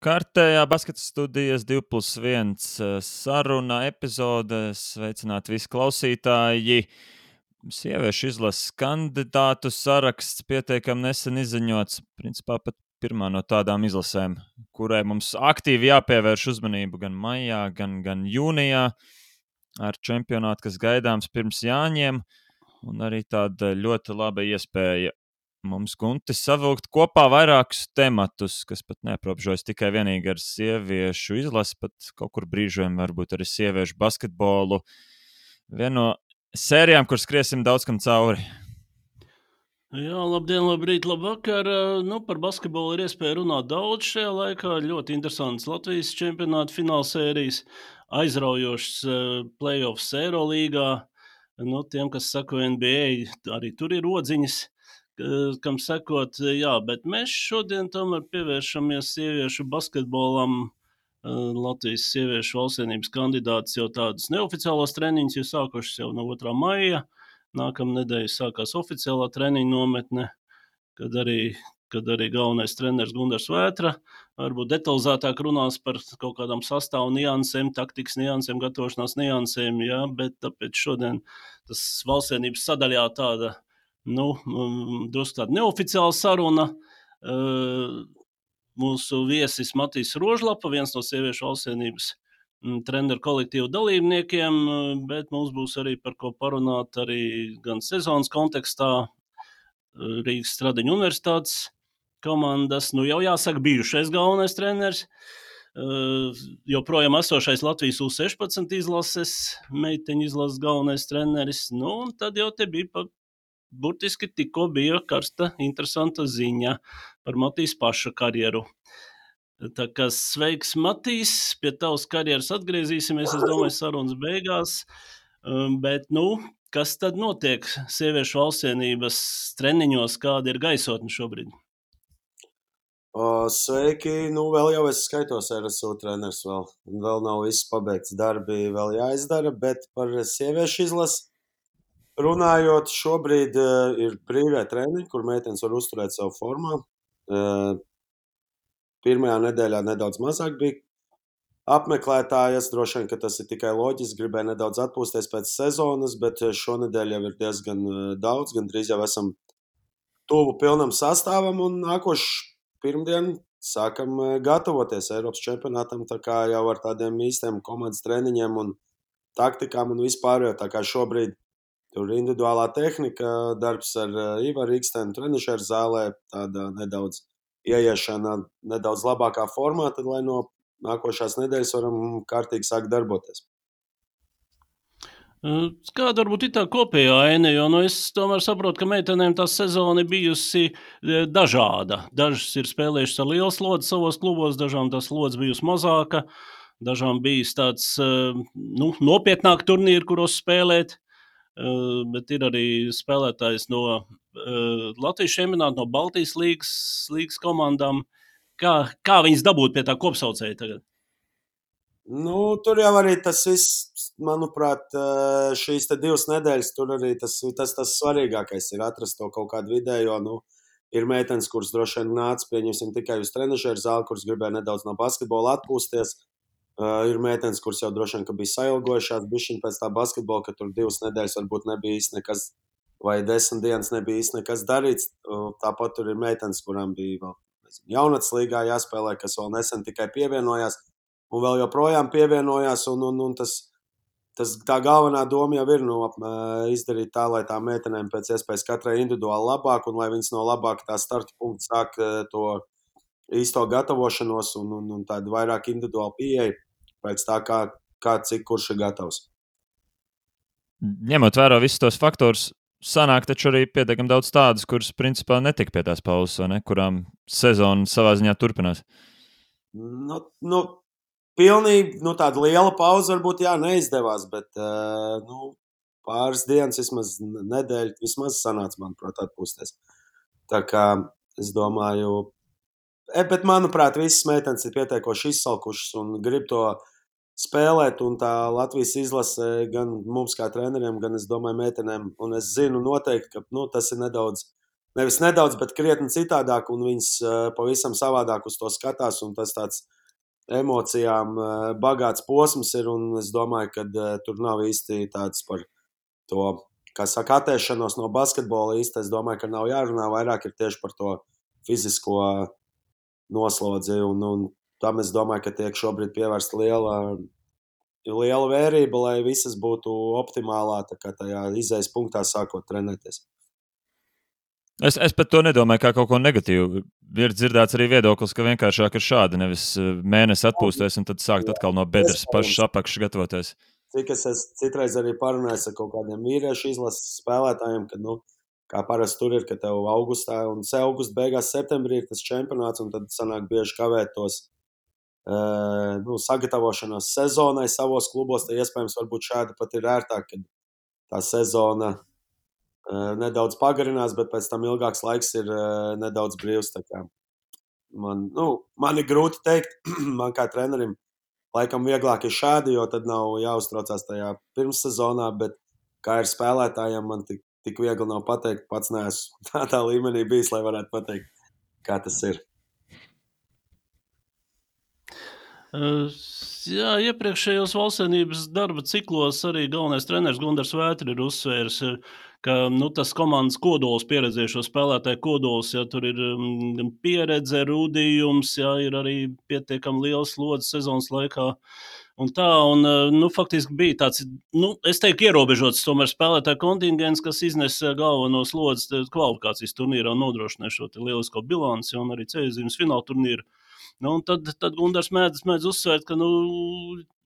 Kārtējā basketa studijas 2+1 saruna epizode. Sveicināti visi klausītāji. Sieviešu izlases kandidātu saraksts pietiekami nesen izziņots. Principā pat pirmā no tādām izlasēm, kurai mums aktīvi jāpievērš uzmanību gan maijā, gan jūnijā ar čempionātu, kas gaidāms pirms Jāņiem. Un arī tāda ļoti laba iespēja mums, Gunti, savilkt kopā vairākus tematus, kas pat neaprobežojas tikai vienīgi ar sieviešu izlasi, pat kaut kur brīžiem varbūt arī sieviešu basketbolu. Viena no sērijām, kur skriesim daudz kam cauri. Jā, labdien, labrīt, labvakar. Par basketbolu ir iespēja runāt daudz šajā laikā. Ļoti interesants Latvijas čempionāta finālsērijas, aizraujošs playoffs Eirolīgā. Tiem, kas sako NBA, arī tur ir odziņas, kam sekot. Jā, bet mēs šodien tomēr pievēršamies sieviešu basketbolam. Latvijas sieviešu valstsienības kandidāts jau tādus neoficiālos treniņus ir sākušas jau no 2. maija. Nākamā nedēļa sākās oficiālā treniņa nometne, kad arī galvenais treneris Gundars Vētra varbūt detalizētāk runās par kaut kādām sastāvu niansēm, taktikas niansēm, gatavošanās niansēm, jā, bet tāpēc šodien tas valstsienības sadaļā tāda, drusku tāda neoficiāla saruna. Mūsu viesis Matīs Rožlapa, viens no sieviešu valstsienības treneru kolektīvu dalībniekiem, bet mums būs arī par ko parunāt arī gan sezonas kontekstā Rīgas Stradiņu universitātes komandas, jau jāsaka bijušais galvenais treneris, joprojām esošais Latvijas U16 izlases, meiteņu izlases galvenais treneris, un tad jau te bija burtiski tikko bija karsta, interesanta ziņa par Matīs paša karjeru. Tā kā sveiks, Matīs, pie tavas karjeras atgriezīsimies, es domāju, sarunas beigās, bet, kas tad notiek sieviešu valstsienības treniņos, kāda ir gaisotne šobrīd? Sveiki, vēl jau es skaitos RSU treneris vēl nav viss pabeigts, darbi vēl jāizdara, bet par sieviešu izlasi runājot, šobrīd ir brīvie treniņi, kur meitenes var uzturēt savu formā. Pirmajā nedēļā nedaudz mazāk bija apmeklētāji. Es droši vien, ka tas ir tikai loģiski, gribēju nedaudz atpūsties pēc sezonas, bet šonedēļ jau ir diezgan daudz, gandrīz jau esam tuvu pilnam sastāvam, un nākošu pirmdienu sākam gatavoties Eiropas čempionātam, tā kā jau ar tādiem īstiem komandas treniņiem un taktikām un vispārējo, tā kā šobrīd tur individuālā tehnika, darbs ar Ivaru Ikstenu trenišeru zālē, tāda nedaudz ieiešana nedaudz labākā formā, tad lai no nākošās nedēļas varam kārtīgi sākt darboties. Kāda varbūt ir tā kopējā aina, jo es tomēr saprotu, ka meitenēm tā sezona ir bijusi dažāda. Dažas ir spēlējušas ar lielu slodzi savos klubos, dažām tā slodze bijusi mazāka, dažām bijis tāds nopietnāk turnīri, kuros spēlēt. Bet ir arī spēlētājs no Latvijas čempionāta, no Baltijas līgas komandām. Kā viņas dabūt pie tā kopsaucēja tagad? Tur jau arī tas viss, manuprāt, šīs 2 nedēļas, tur arī tas svarīgākais ir atrast to kaut kādu vidējo. Ir meitenes, kuras droši vien nāca, pieņemsim, tikai uz trenišeru zāli, kuras gribēja nedaudz no basketbola atpūsties. Ir meitenes, kuras jau droši vien, ka bija sailgojušās bišķiņ pēc tā basketbola, ka tur 2 nedēļas varbūt nebija īsti nekas, vai 10 dienas nebija īsti nekas darīts. Tāpat tur ir meitenes, kurām bija vēl jaunatnes līgā jāspēlē, kas vēl nesen tikai pievienojās un vēl joprojām pievienojās. Un tā galvenā doma jau ir izdarīt tā, lai tā meitenēm pēc iespējas katrai individuāli labāk un lai viņas no labāka tā starta punkta sāk to īsto gatavošanos un tādu vairāk individuālu pieeju pēc tā, kā cik kurš ir gatavs. Ņemot vērā visus tos faktorus, sanāk taču arī pietiekami daudz tādas, kuras principā netika pie tās pauzes, vai ne? Kurām sezona savā ziņā turpinās. Pilnīgi tāda liela pauze varbūt neizdevās, bet pāris dienas, vismaz nedēļu, vismaz sanāca, manuprāt, atpūsties. Tā kā es domāju, bet manuprāt, visas meitenes ir pietiekoši izsalkušas un grib to spēlēt, un tā Latvijas izlase gan mums kā treneriem, gan es domāju meitenēm, un es zinu noteikti, ka tas ir nedaudz nevis nedaudz, bet krietni citādāk, un viņas pavisam savādāk uz to skatās, un tas tāds emocijām bagāts posms ir, un es domāju, ka tur nav īsti tāds par to, kā saka, attēšanos no basketbola īsti. Es domāju, ka nav jārunā, vairāk ir tieši par to fizisko noslodzi, un tam es domāju, ka tiek šobrīd pievērsta liela vērība, lai visas būtu optimālā, tā kā tajā izējas punktā sākot trenēties. Es pat to nedomāju kā kaut ko negatīvu. Ir dzirdēts arī viedoklis, ka vienkāršāk ir šādi, nevis mēnesi atpūsties un tad sākt atkal no bedres pašas apakšas gatavoties. Cik es citreiz arī parunāju ar kaut kādiem vīriešu izlases spēlētājiem, kad, kā parasti tur ir, ka tev augustā un augusta beigās septembrī ir tas čempionāts, un tad sanāk bieži kavēt tos sagatavošanos sezonai savos klubos. Tad iespējams varbūt šādi pat ir ērtāk, kad tā sezona nedaudz pagarinās, bet pēc tam ilgāks laiks ir nedaudz brīvs. Man ir grūti teikt, man kā trenerim laikam vieglāk ir šādi, jo tad nav jāuztraucās tajā pirmssezonā, bet kā ir spēlētājiem, man tik viegli nav pateikt, pats neesmu tādā līmenī bijis, lai varētu pateikt, kā tas ir. Jā, iepriekšējos valstsvienības darba ciklos arī galvenais treneris Gundars Vētra ir uzsvērs, ka tas komandas kodols, pieredzējušo spēlētāju kodols, ja tur ir pieredze, rūdījums, ja ir arī pietiekami liels slodzi sezonas laikā. Un faktiski bija tāds, es teiktu, ierobežots tomēr spēlētāju kontingents, kas iznesa galveno slodzi kvalifikācijas turnīrā un nodrošināja šo lielisko bilanci un arī ceļzīmes fināla turnīru. Tad Gundars mēdz uzsvērt, ka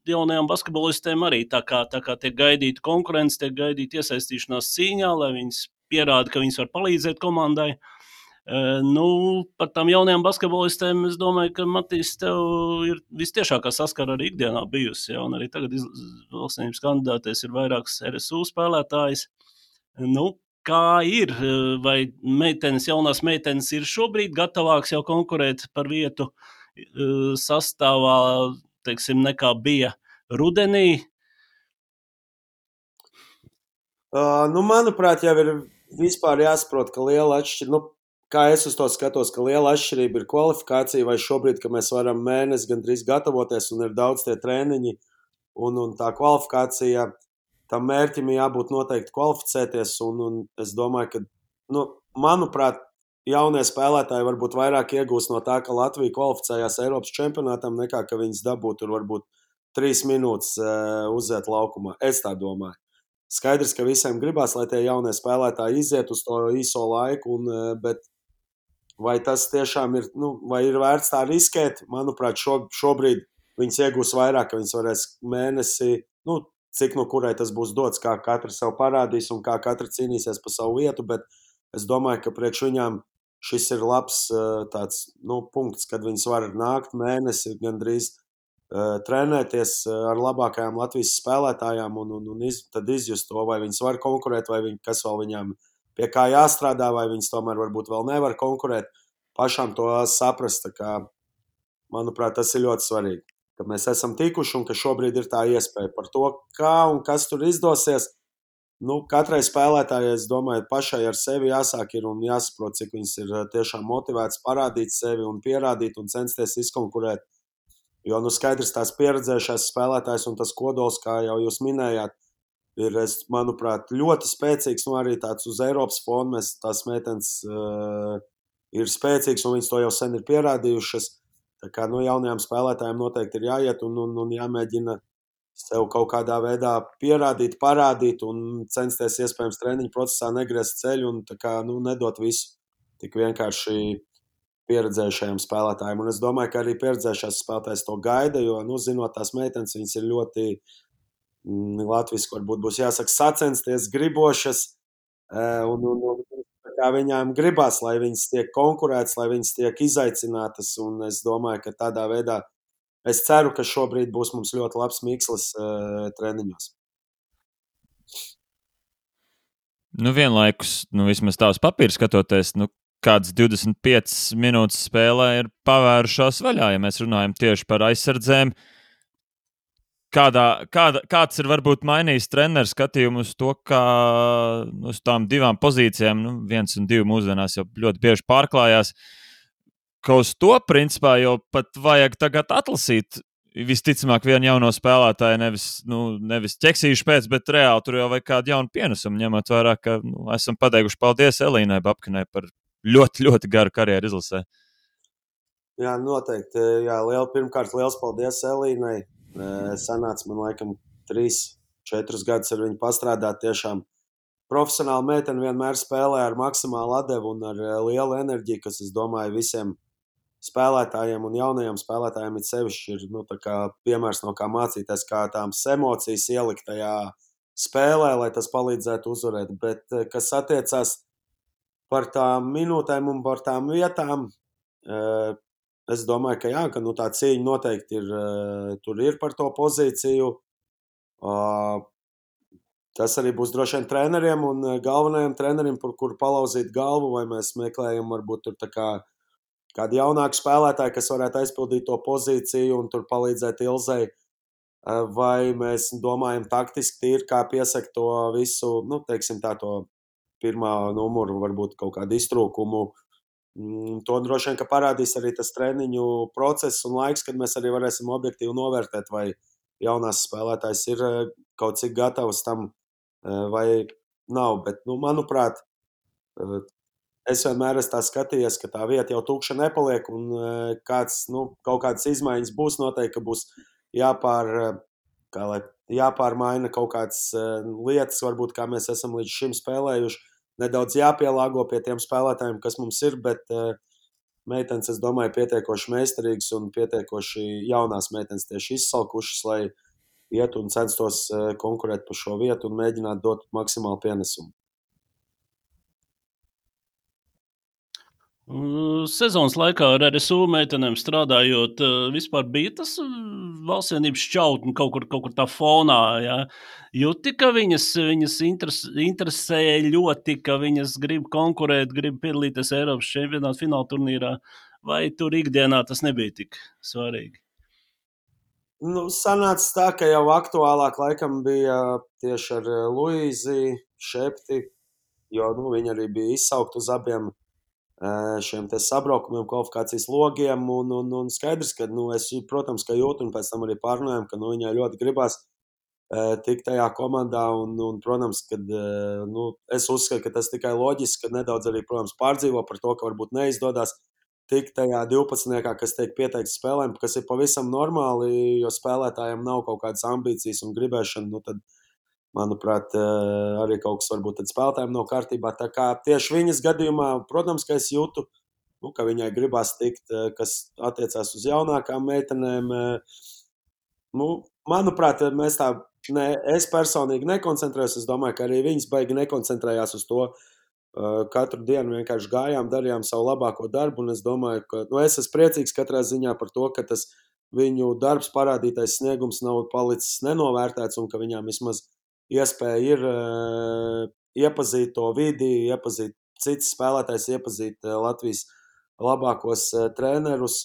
jaunajām basketbolistēm arī tā kā tiek gaidīta konkurence, tiek gaidīta iesaistīšanās cīņā, lai viņas pierāda, ka viņas var palīdzēt komandai. Par tām jaunajām basketbolistēm es domāju, ka Matīs tev ir vistiešākā saskara arī ikdienā bijusi, ja, un arī tagad valstsvienības kandidātēs ir vairākas RSU spēlētājas. Kā ir? Vai jaunās meitenes ir šobrīd gatavāks jau konkurēt par vietu sastāvā, teiksim, nekā bija rudenī? Manuprāt, jau ir vispār jāsaprot, ka liela atšķirība, kā es uz to skatos, ka liela atšķirība ir kvalifikācija, vai šobrīd, ka mēs varam mēnesi gandrīz gatavoties un ir daudz tie treniņi un tā kvalifikācija, tam mērķim jābūt noteikti kvalificēties, un es domāju, ka, manuprāt, jaunie spēlētāji varbūt vairāk iegūst no tā, ka Latvija kvalificējās Eiropas čempionātam, nekā ka viņas dabūtu tur varbūt 3 minūtes uziet laukumā. Es tā domāju. Skaidrs, ka visiem gribās, lai tie jaunie spēlētāji iziet uz to īso laiku, bet vai tas tiešām ir, vai ir vērts tā riskēt? Manuprāt, šobrīd viņas iegūs vairāk, ka viņas varēs mēnesi, cik no kurai tas būs dots, kā katra sev parādīs un kā katra cīnīsies pa savu vietu, bet es domāju, ka priekš viņām šis ir labs tāds, punkts, kad viņas var nākt mēnesi gandrīz trenēties ar labākajām Latvijas spēlētājām un tad izjust to, vai viņas var konkurēt, vai kas vēl viņām pie kā jāstrādā, vai viņas tomēr varbūt vēl nevar konkurēt. Pašām to saprast, tā kā, manuprāt, tas ir ļoti svarīgi, ka mēs esam tikuši un ka šobrīd ir tā iespēja par to, kā un kas tur izdosies. Katrai spēlētājai, es domāju, pašai ar sevi jāsāk ir un jāsaprot, cik viņas ir tiešām motivētas parādīt sevi un pierādīt un censties izkonkurēt. Jo, skaidrs, tās pieredzējušās spēlētājs un tas kodols, kā jau jūs minējāt, ir, manuprāt, ļoti spēcīgs, arī tāds uz Eiropas fona. Tās meitenes ir spēcīgas un viņas to jau sen ir pierādījušas. Tā kā, jaunajām spēlētājiem noteikti ir jāiet un jāmēģina sev kaut kādā veidā pierādīt, parādīt un censties iespējams treniņu procesā negriezt ceļu un tā kā, nedot visu tik vienkārši pieredzējušajiem spēlētājiem. Un es domāju, ka arī pieredzējušās spēlētājs to gaida, jo, zinot tās meitenes, viņas ir ļoti latviski, varbūt būs jāsaka, sacensties, gribošas, un kā viņām gribās, lai viņas tiek konkurētas, lai viņas tiek izaicinātas, un es domāju, ka tādā veidā es ceru, ka šobrīd būs mums ļoti labs mikslis treniņos. Vienlaikus, vismaz tā uz papīra skatoties, kāds 25 minūtes spēlē ir pavērušās vaļā, ja mēs runājam tieši par aizsardzēm. kāds ir varbūt mainījis treneru skatījumu uz to, kā uz tām divām pozīcijām, 1 un 2 mūsdienās jau ļoti bieži pārklājās, ka uz to principā jau pat vajag tagad atlasīt visticamāk vienu jauno spēlētāju, nevis ķeksīšu pēc, bet reāli tur jau vajag kādu jaunu pienesumu, ņemot vērā, ka esam pateikuši paldies Elīnai Babkinai par ļoti, ļoti garu karjeru izlasē. Jā, noteikti. Jā, pirmkārt, liels paldies Elīnai. Sanāca man laikam 3-4 gadus ar viņu pastrādāt. Tiešām profesionāli meitene vienmēr spēlē ar maksimālu atdevu un ar lielu enerģiju, kas, es domāju, visiem spēlētājiem un jaunajiem spēlētājiem ir sevišķi piemērs, no kā mācīties, kā tādas emocijas ielikt tajā spēlē, lai tas palīdzētu uzvarēt. Bet, kas attiecās par tām minūtēm un par tām vietām, es domāju, ka jā, ka tā cīņa noteikti tur ir par to pozīciju. Tas arī būs droši vien treneriem un galvenajiem treneriem, par kuru palauzīt galvu, vai mēs meklējam varbūt tur kādu jaunāku spēlētāju, kas varētu aizpildīt to pozīciju un tur palīdzēt Ilzei, vai mēs domājam taktiski tīri, kā piesakt to visu, teiksim tā, to pirmā numuru, varbūt kaut kādu iztrūkumu. To droši vien, ka parādīs arī tas treniņu process un laiks, kad mēs arī varēsim objektīvi novērtēt, vai jaunās spēlētājs ir kaut cik gatavs tam, vai nav. Bet, manuprāt, es vienmēr esmu tā skatījies, ka tā vieta jau tukša nepaliek, un kaut kādas izmaiņas būs. Noteikti, ka būs jāpārmaina kaut kādas lietas, varbūt kā mēs esam līdz šim spēlējuši. Nedaudz jāpielāgo pie tiem spēlētājiem, kas mums ir, bet meitenes, es domāju, pietiekoši meistarīgas un pietiekoši jaunās meitenes tieši izsalkušas, lai iet un censtos konkurēt par šo vietu un mēģināt dot maksimālu pienesumu. Sezonas laikā ar RSU meitenēm strādājot, vispār bija tas valstsienības šķautni kaut kur tā fonā. Ja? Jūti, ka viņas interesē ļoti, ka viņas grib konkurēt, grib piedalīties Eiropas čempionāta fināla turnīrā, vai tur ikdienā tas nebija tik svarīgi? Sanāca tā, ka jau aktuālāk laikam bija tieši ar Luīzi Šepti, jo viņa arī bija izsaukt uz abiem šiem sabraukumiem, kvalifikācijas logiem, un skaidrs, ka es, protams, ka jūtu, un pēc tam arī pārunājam, ka viņai ļoti gribās tikt tajā komandā, un protams, kad es uzskatu, ka tas tikai loģiski, ka nedaudz arī, protams, pārdzīvo par to, ka varbūt neizdodas tikt tajā 12, kas tiek pieteikts spēlēm, kas ir pavisam normāli, jo spēlētājiem nav kaut kādas ambīcijas un gribēšana, tad manuprāt, arī kaut kas varbūt spēlētājiem nav kārtībā. Tā kā tieši viņas gadījumā, protams, ka es jūtu, ka viņai gribās tikt, kas attiecās uz jaunākām meitenēm. Manuprāt, es personīgi nekoncentrējos. Es domāju, ka arī viņas baigi nekoncentrējās uz to. Katru dienu vienkārši gājām, darījām savu labāko darbu, un es domāju, ka es esmu priecīgs katrā ziņā par to, ka tas viņu darbs, parādītais sniegums nav palicis nenovērtēts, un ka viņām vismaz iespēja ir iepazīt to vidi, iepazīt citas spēlētājs, iepazīt Latvijas labākos trenerus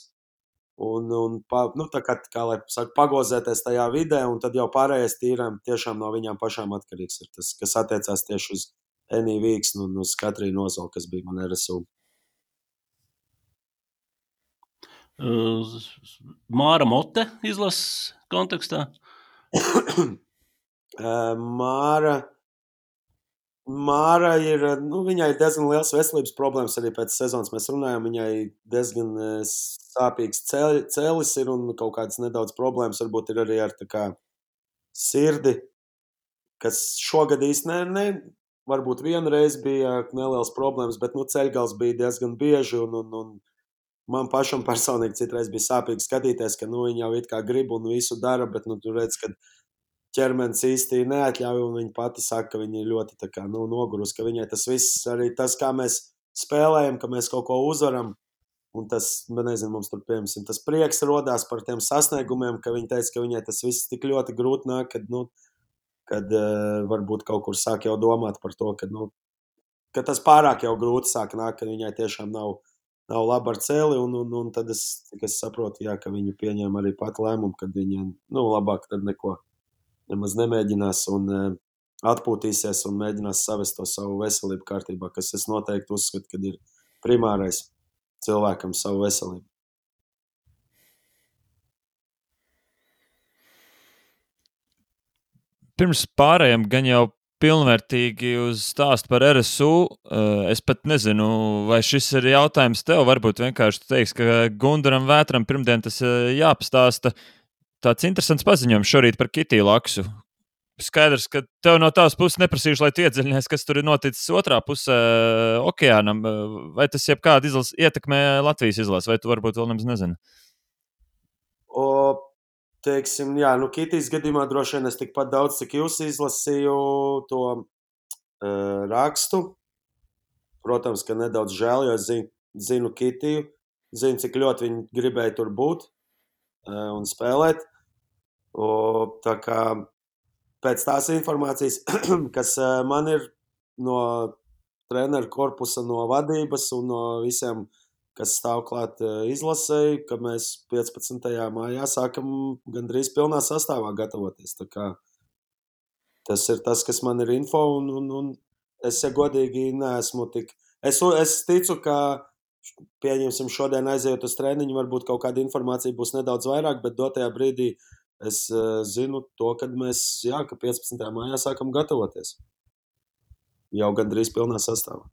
un kā lai saka, pagozēties tajā vidē, un tad jau pārējais tīrām tiešām no viņām pašām atkarīgs ir tas, kas attiecās tieši uz Eniju Vīksnu un uz Katrīnu Ozolu, kas bija man RSU. Māra Mote izlases kontekstā? Māra ir, viņai ir diezgan liels veselības problēmas arī pēc sezonas. Mēs runājam, viņai diezgan sāpīgs cēlis ir un kaut kādas nedaudz problēmas varbūt ir arī ar sirdi, kas šogad īsti varbūt vienreiz bija nelielas problēmas, bet ceļgals bija diezgan bieži un man pašam personīgi citreiz bija sāpīgi skatīties, ka viņa jau it kā grib un visu dara, bet tu redz, ka ķermenis īsti neatļauj, un viņa pati saka, ka viņa ir ļoti nogurusi, ka viņai tas viss, arī tas, kā mēs spēlējam, ka mēs kaut ko uzvaram, un tas, nezinu, mums tur, piemēram, tas prieks rodās par tiem sasniegumiem, ka viņa teica, ka viņai tas viss tik ļoti grūti nāk, kad varbūt kaut kur sāk jau domāt par to, ka tas pārāk jau grūti sāk nāk, ka viņai tiešām nav nav labi ar cēli, un tad es saprotu, jā, ka viņi pieņēma arī pat lēmumu, kad viņiem, labāk tad neko nemaz nemēģinās un atpūtīsies un mēģinās savest to savu veselību kārtībā, kas es noteikti uzskatu, kad ir primārais cilvēkam savu veselību. Pirms pārējiem gan jau pilnvērtīgi uz stāstu par RSU. Es pat nezinu, vai šis ir jautājums tev. Varbūt vienkārši tu teiksi, ka Gundaram Vētram pirmdien tas jāpastāsta. Tāds interesants paziņojums šorīt par Kitiju Laksu. Skaidrs, ka tev no tavas puses neprasīšu, lai tu iedziļinies, kas tur ir noticis otrā pusē okeānam. Vai tas jebkāda ietekmē Latvijas izlasi, vai tu varbūt vēl nemaz nezini? Teiksim, jā, Kitijas gadījumā droši vien es tikpat daudz, cik jūs izlasīju to rakstu. Protams, ka nedaudz žēl, jo es zinu Kitiju, zinu, cik ļoti viņi gribēja tur būt un spēlēt. Tā kā pēc tās informācijas, kas man ir no treneru korpusa, no vadības un no visiem, kas stāv klāt izlasēji, ka mēs 15. maijā sākam gandrīz pilnā sastāvā gatavoties. Tā kā tas ir tas, kas man ir info, un es, ja godīgi, neesmu tik... Es ticu, ka, pieņemsim, šodien aiziet uz treniņu, varbūt kaut kāda informācija būs nedaudz vairāk, bet dotajā brīdī es zinu to, kad mēs, ka 15. maijā sākam gatavoties. Jau gandrīz pilnā sastāvā.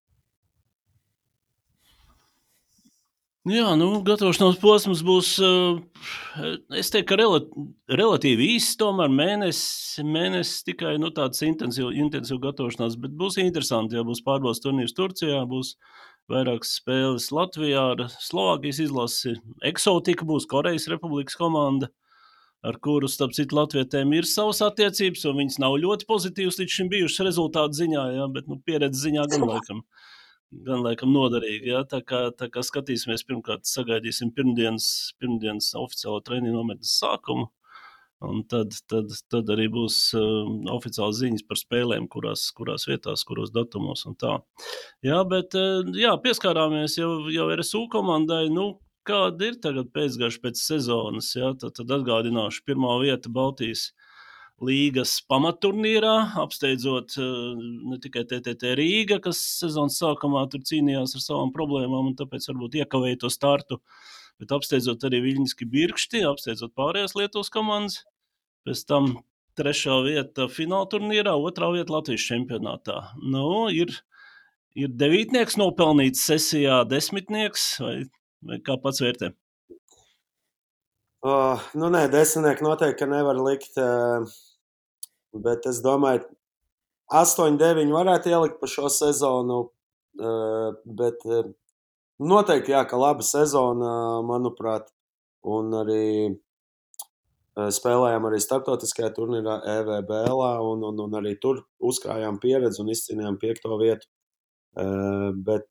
Jā, gatavošanās posms būs, es teiktu, ka relatīvi īsts, tomēr mēnesis tikai tāds intensīvu gatavošanās, bet būs interesanti, ja būs pārbaudas turnīrs Turcijā, būs vairākas spēles Latvijā ar Slovākijas izlasi, Eksotika būs Korejas Republikas komanda, ar kuru, starp citu, latvietēm ir savas attiecības, un viņas nav ļoti pozitīvas līdz šim bijušas rezultātu ziņā, bet pieredze ziņā gan laikam noderīgi. Ja? Tā kā skatīsimies, pirmkārt sagaidīsim pirmdienas oficiālo treniņu nometnes sākumu, un tad arī būs oficiāls ziņas par spēlēm, kurās vietās, kuros datumos un tā. Jā, bet pieskārāmies jau RSU komandai, kāda ir tagad pēcgarša pēc sezonas, ja? Tad atgādināšu, pirmā vieta Baltijas līgas pamatturnīrā, apsteidzot ne tikai TTT Rīga, kas sezonas sākumā tur cīnījās ar savām problēmām un tāpēc varbūt iekavēja to startu, bet apsteidzot arī Viļņiski Birkšti, apsteidzot pārējās Lietuvas komandas, pēc tam 3. vieta fināla turnīrā, 2. vieta Latvijas čempionātā. Ir 9. nopelnīts sesijā, 10. vai kā pats vērtē? Nē, 10. noteikti nevar likt, bet es domāju, 8-9 varētu ielikt pa šo sezonu, bet noteikti, ka laba sezona, manuprāt, un arī spēlējām arī starptautiskajā turnīrā EVBLā, un arī tur uzkrājām pieredzi un izcīnījām 5. vietu. Bet,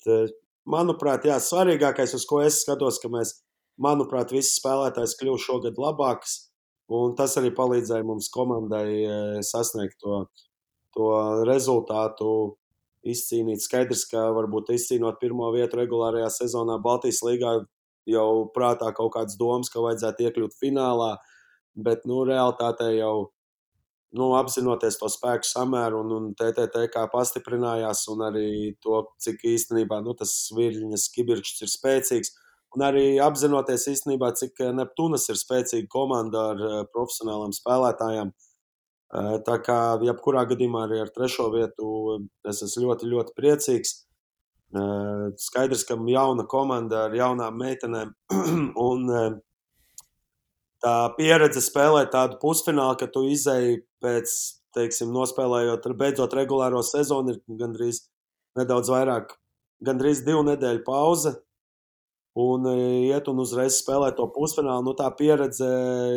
manuprāt, svarīgākais, uz ko es skatos, ka mēs, manuprāt, visi spēlētājs kļuva šogad labāks, un tas arī palīdzēja mums komandai sasniegt to rezultātu, izcīnīt. Skaidrs, ka varbūt izcīnot 1. vietu regulārajā sezonā Baltijas līgā jau prātā kaut kāds domas, ka vajadzētu iekļūt finālā, bet, realitātē jau apzinoties to spēku samēru un TTT kā pastiprinājās un arī to, cik īstenībā tas Viļņas Kibirkšts ir spēcīgs. Un arī apzinoties īstenībā, cik Neptūnas ir spēcīga komanda ar profesionālām spēlētājām. Tā kā jebkurā gadījumā arī ar 3. vietu es esmu ļoti, ļoti priecīgs. Skaidrs, ka jauna komanda ar jaunām meitenēm un tā pieredze spēlēt tādu pusfinālu, ka tu izēji pēc, teiksim, nospēlējot, beidzot regulāro sezonu, ir gandrīz nedaudz vairāk, gandrīz 2 nedēļu pauze, un iet un uzreiz spēlēt to pusfinālu, tā pieredze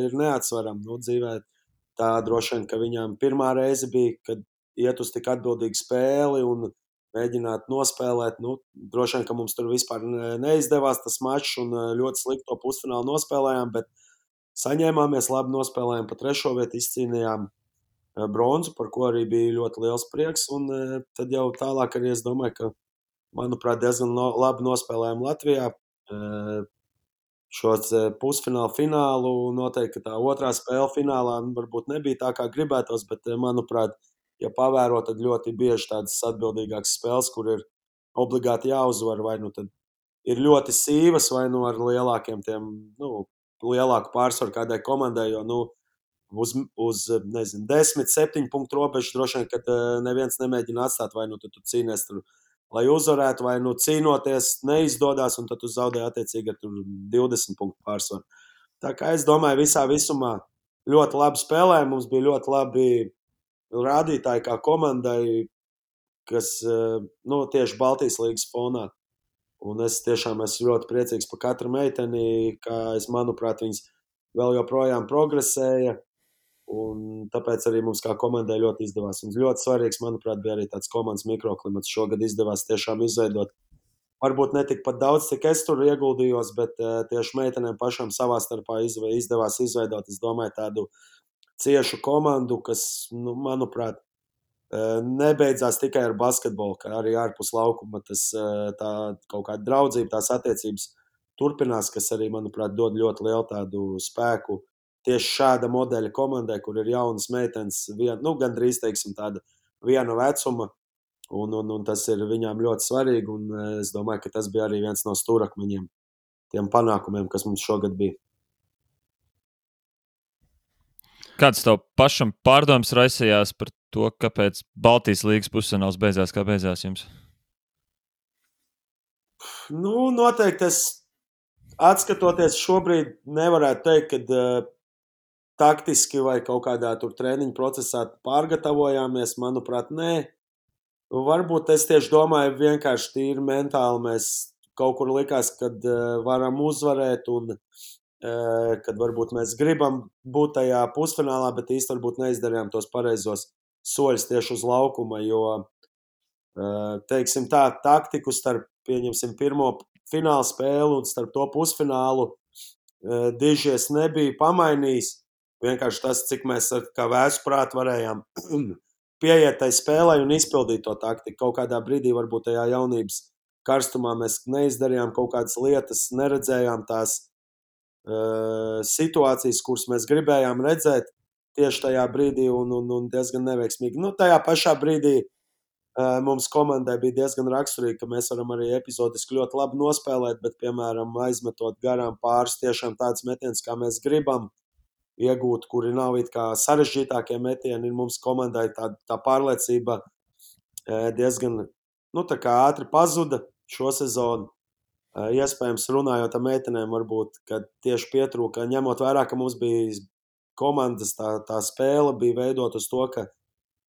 ir neatsverama dzīvē. Tā droši vien, ka viņām pirmā reize bija, kad iet uz tik atbildīgu spēli un mēģināt nospēlēt. Droši vien, ka mums tur vispār neizdevās tas mačs un ļoti slikti to pusfinālu nospēlējām, bet saņēmāmies, labi nospēlējām pa 3. vietu, izcīnījām bronzu, par ko arī bija ļoti liels prieks, un tad jau tālāk arī es domāju, ka, manuprāt, diezgan labi nospēlējām Latvijā. šos pusfinālu, finālu. Noteikti tā otrā spēle finālā varbūt nebija tā, kā gribētos, bet, manuprāt, ja pavēro, tad ļoti bieži tādas atbildīgākas spēles, kur ir obligāti jāuzvar, vai nu tad ir ļoti sīvas, vai nu ar lielākiem tiem, lielāku pārsvaru kādai komandai, jo, uz 10, 7 punktu robežu droši vien, kad neviens nemēģina atstāt, vai nu tad tu cīnies tur, lai uzvarētu, vai nu cīnoties neizdodas, un tad tu zaudē attiecīgi ar 20 punktu pārsvaru. Tā kā es domāju, visā visumā ļoti labi spēlēja, mums bija ļoti labi rādītāji kā komandai, kas tieši Baltijas līgas fonā. Un es tiešām esmu ļoti priecīgs par katru meiteni, kā manuprāt, viņas vēl joprojām progresēja. Un tāpēc arī mums kā komandai ļoti izdevās. Un ļoti svarīgs, manuprāt, bija arī tāds komandas mikroklimats. Šogad izdevās tiešām izveidot. Varbūt ne tik pat daudz, cik es tur ieguldījos, bet tieši meitenēm pašām savā starpā izdevās izveidot, es domāju, tādu ciešu komandu, kas, manuprāt, nebeidzās tikai ar basketbolu, kā arī ārpus laukuma. Tā kaut kāda draudzība, tās attiecības turpinās, kas arī, manuprāt, dod ļoti lielu tādu spēku tieši šāda modeļa komandai, kur ir jaunas meitenes, gandrīz, teiksim, tāda viena vecuma, un tas ir viņām ļoti svarīgi, un es domāju, ka tas bija arī viens no stūrakmeņiem tiem panākumiem, kas mums šogad bija. Kāds tev pašam pārdoms raisījās par to, kāpēc Baltijas līgas pusfināls beidzās, kā beidzās jums? Noteikti es atskatoties šobrīd nevarētu teikt, ka taktiski vai kaut kādā tur treniņu procesā pārgatavojāmies, manuprāt, nē. Varbūt es tieši domāju, vienkārši tīri mentāli mēs kaut kur likās, kad varam uzvarēt un kad varbūt mēs gribam būt tajā pusfinālā, bet īsti varbūt neizdarījām tos pareizos soļus tieši uz laukuma, jo, teiksim tā, taktiku starp, pieņemsim, pirmo fināla spēli un starp to pusfinālu dižies nebija pamainījis. Vienkārši tas, cik mēs kā vēsprāt varējām pieiet tai spēlē un izpildīt to taktiku. Kaut kādā brīdī varbūt tajā jaunības karstumā mēs neizdarījām kaut kādas lietas, neredzējām tās situācijas, kuras mēs gribējām redzēt tieši tajā brīdī un diezgan neveiksmīgi. Tajā pašā brīdī mums komandai bija diezgan raksturīgi, ka mēs varam arī epizodiski ļoti labi nospēlēt, bet, piemēram, aizmetot garām pāris tiešām tāds metiens, kā mēs gribam iegūt, kuri nav it kā sarežģītākie metieni, ir mums komandai tā pārliecība diezgan, tā kā ātri pazuda šo sezonu. Iespējams, runājot ar meitenēm, varbūt, kad tieši pietrūka, ņemot vērā, ka mums bija komandas, tā spēle bija veidot uz to, ka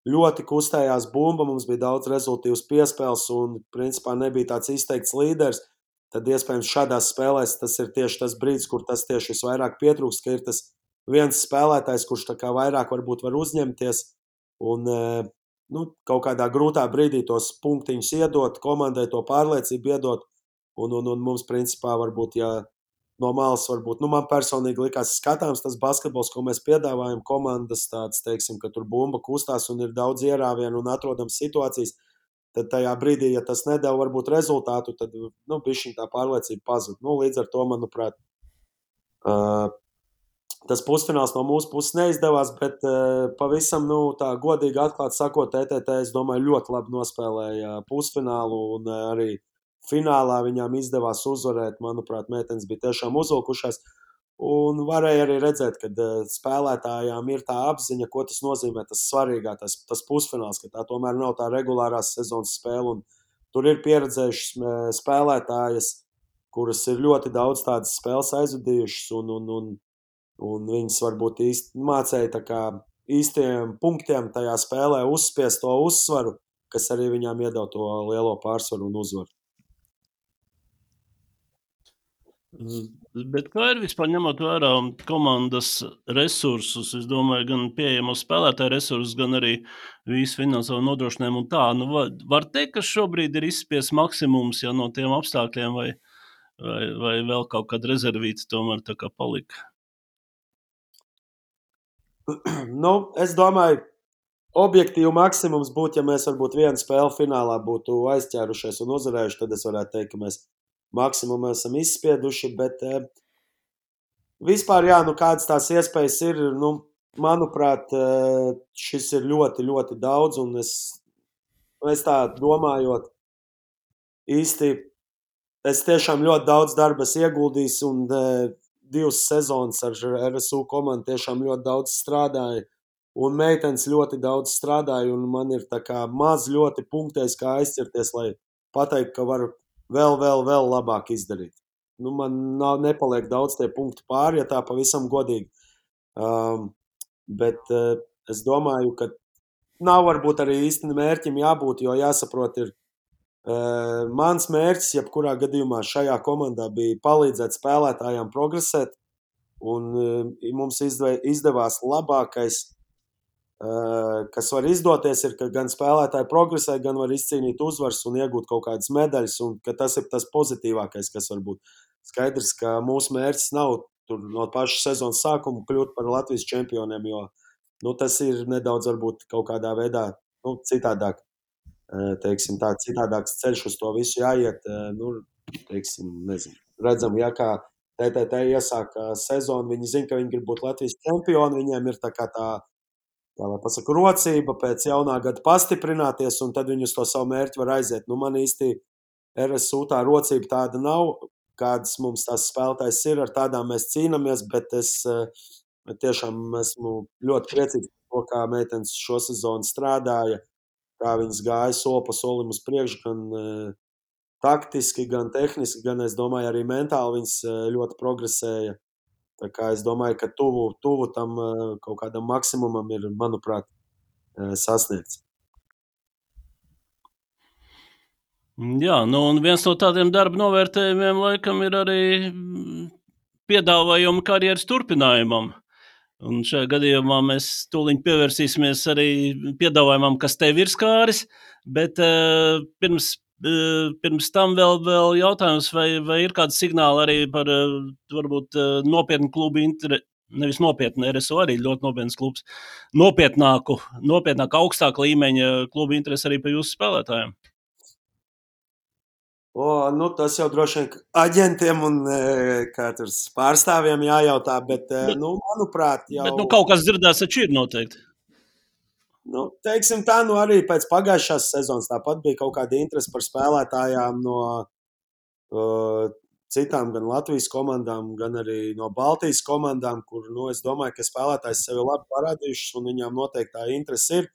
ļoti kustējās bumba, mums bija daudz rezultīvas piespēles un, principā, nebija tāds izteikts līderis, tad, iespējams, šādās spēlēs tas ir tieši tas brīdis, kur tas tieši visvairāk pietrūkst, ka ir tas viens spēlētājs, kurš tā kā vairāk varbūt var uzņemties un kaut kādā grūtā brīdī tos punktiņus iedot, komandai to pārliecību iedot, un mums, principā, varbūt, ja no malas varbūt, man personīgi likās skatāms tas basketbols, ko mēs piedāvājam, komandas tāds, teiksim, ka tur bumba kustās un ir daudz ierāvienu un atrodams situācijas, tad tajā brīdī, ja tas nedēļ varbūt rezultātu, tad, bišķiņ tā pārliecība pazud. Līdz ar to, manuprāt, tas pusfināls no mūsu puses neizdevās, bet pavisam, tā godīgi atklāt sakot, TTT, es domāju, ļoti labi nospēlēja pusfinālu un arī finālā viņām izdevās uzvarēt. Manuprāt, meitenes bija tiešām uzvilkušās un varēja arī redzēt, ka spēlētājām ir tā apziņa, ko tas nozīmē, tas svarīgā, tas pusfināls, ka tā tomēr nav tā regulārās sezonas spēle un tur ir pieredzējušas spēlētājas, kuras ir ļoti daudz tādas spēles aizvadījušas un viņas varbūt mācēja tā kā īstiem punktiem tajā spēlē uzspiest to uzsvaru, kas arī viņām iedod to lielo pārsvaru un uzvaru. Bet kā ir vispār ņemot vērā komandas resursus, es domāju, gan pieejamos spēlētāju resursus, gan arī visu finansiālo nodrošinājumu un tā, var teikt, ka šobrīd ir izspies maksimums, ja no tiem apstākļiem vai vēl kaut kāda rezervīta tomēr tā kā palika? Es domāju, objektīvi maksimums būtu, ja mēs varbūt vienu spēli finālā būtu aizķērušies un uzvarējuši, tad es varētu teikt, ka mēs maksimumu esam izspieduši, bet vispār, kādas tās iespējas ir, manuprāt, šis ir ļoti, ļoti daudz, un es tā domājot, īsti, es tiešām ļoti daudz darba ieguldījis, un 2 sezonas ar RSU komandu tiešām ļoti daudz strādāju, un meitenes ļoti daudz strādāju, un man ir tā kā maz ļoti punktēs, kā aizķerties, lai pateikt, ka varu vēl labāk izdarīt. Man nepaliek daudz tie punkti pāri, ja tā pavisam godīgi. Bet es domāju, ka nav varbūt arī īsti mērķim jābūt, jo jāsaprot ir, mans mērķis, jebkurā gadījumā šajā komandā bija palīdzēt spēlētājiem progresēt, un mums izdevās labākais, kas var izdoties, ir, ka gan spēlētāji progresē, gan var izcīnīt uzvaras un iegūt kaut kādas medaļas, un ka tas ir tas pozitīvākais, kas var būt. Skaidrs, ka mūsu mērķis nav tur no paša sezonas sākuma kļūt par Latvijas čempioniem, jo tas ir nedaudz varbūt kaut kādā veidā citādāk, teiksim tā, citādāks ceļš uz to visu jāiet, teiksim, nezinu. Redzam, kā TTT iesāka sezonu, viņi zina, ka viņi grib būt Latvijas čempioni, viņiem ir tā kā tā lai pasaka, rocība pēc jaunā gada pastiprināties, un tad viņi uz to savu mērķi var aiziet. Man īsti RSU tā rocība tāda nav, kādas mums tās spēlētājs ir, ar tādām mēs cīnāmies, bet es tiešām esmu ļoti priecīgs par to, kā meitenes šo sezonu strādāja, kā viņas gāja soli pa solim uz priekšu, gan taktiski, gan tehniski, gan es domāju arī mentāli viņas ļoti progresēja. Tā kā es domāju, ka tuvu tam kaut kādam maksimumam ir, manuprāt, sasniegts. Jā, un viens no tādiem darba novērtējumiem laikam ir arī piedāvājumi karjeras turpinājumam. Un šajā gadījumā mēs tūliņ pievērsīsimies arī piedāvājumam, kas tev ir skāris, bet pirms tam vēl jautājums, vai ir kāds signāli arī par varbūt nopietnu klubu interesi, nevis nopietnu, RSU arī ļoti nopietns klubs, nopietnāku, augstāku līmeņa klubu interesi arī par jūsu spēlētājiem? Tas jau droši vien aģentiem un pārstāvjiem jājautā, bet manuprāt, jau... Bet kaut kas dzirdēts taču ir noteikti. Teiksim tā, arī pēc pagājušās sezonas tāpat bija kaut kāda interese par spēlētājām no citām gan Latvijas komandām, gan arī no Baltijas komandām, kur, es domāju, ka spēlētājs sevi labi parādījušas un viņām noteikti tā interese ir.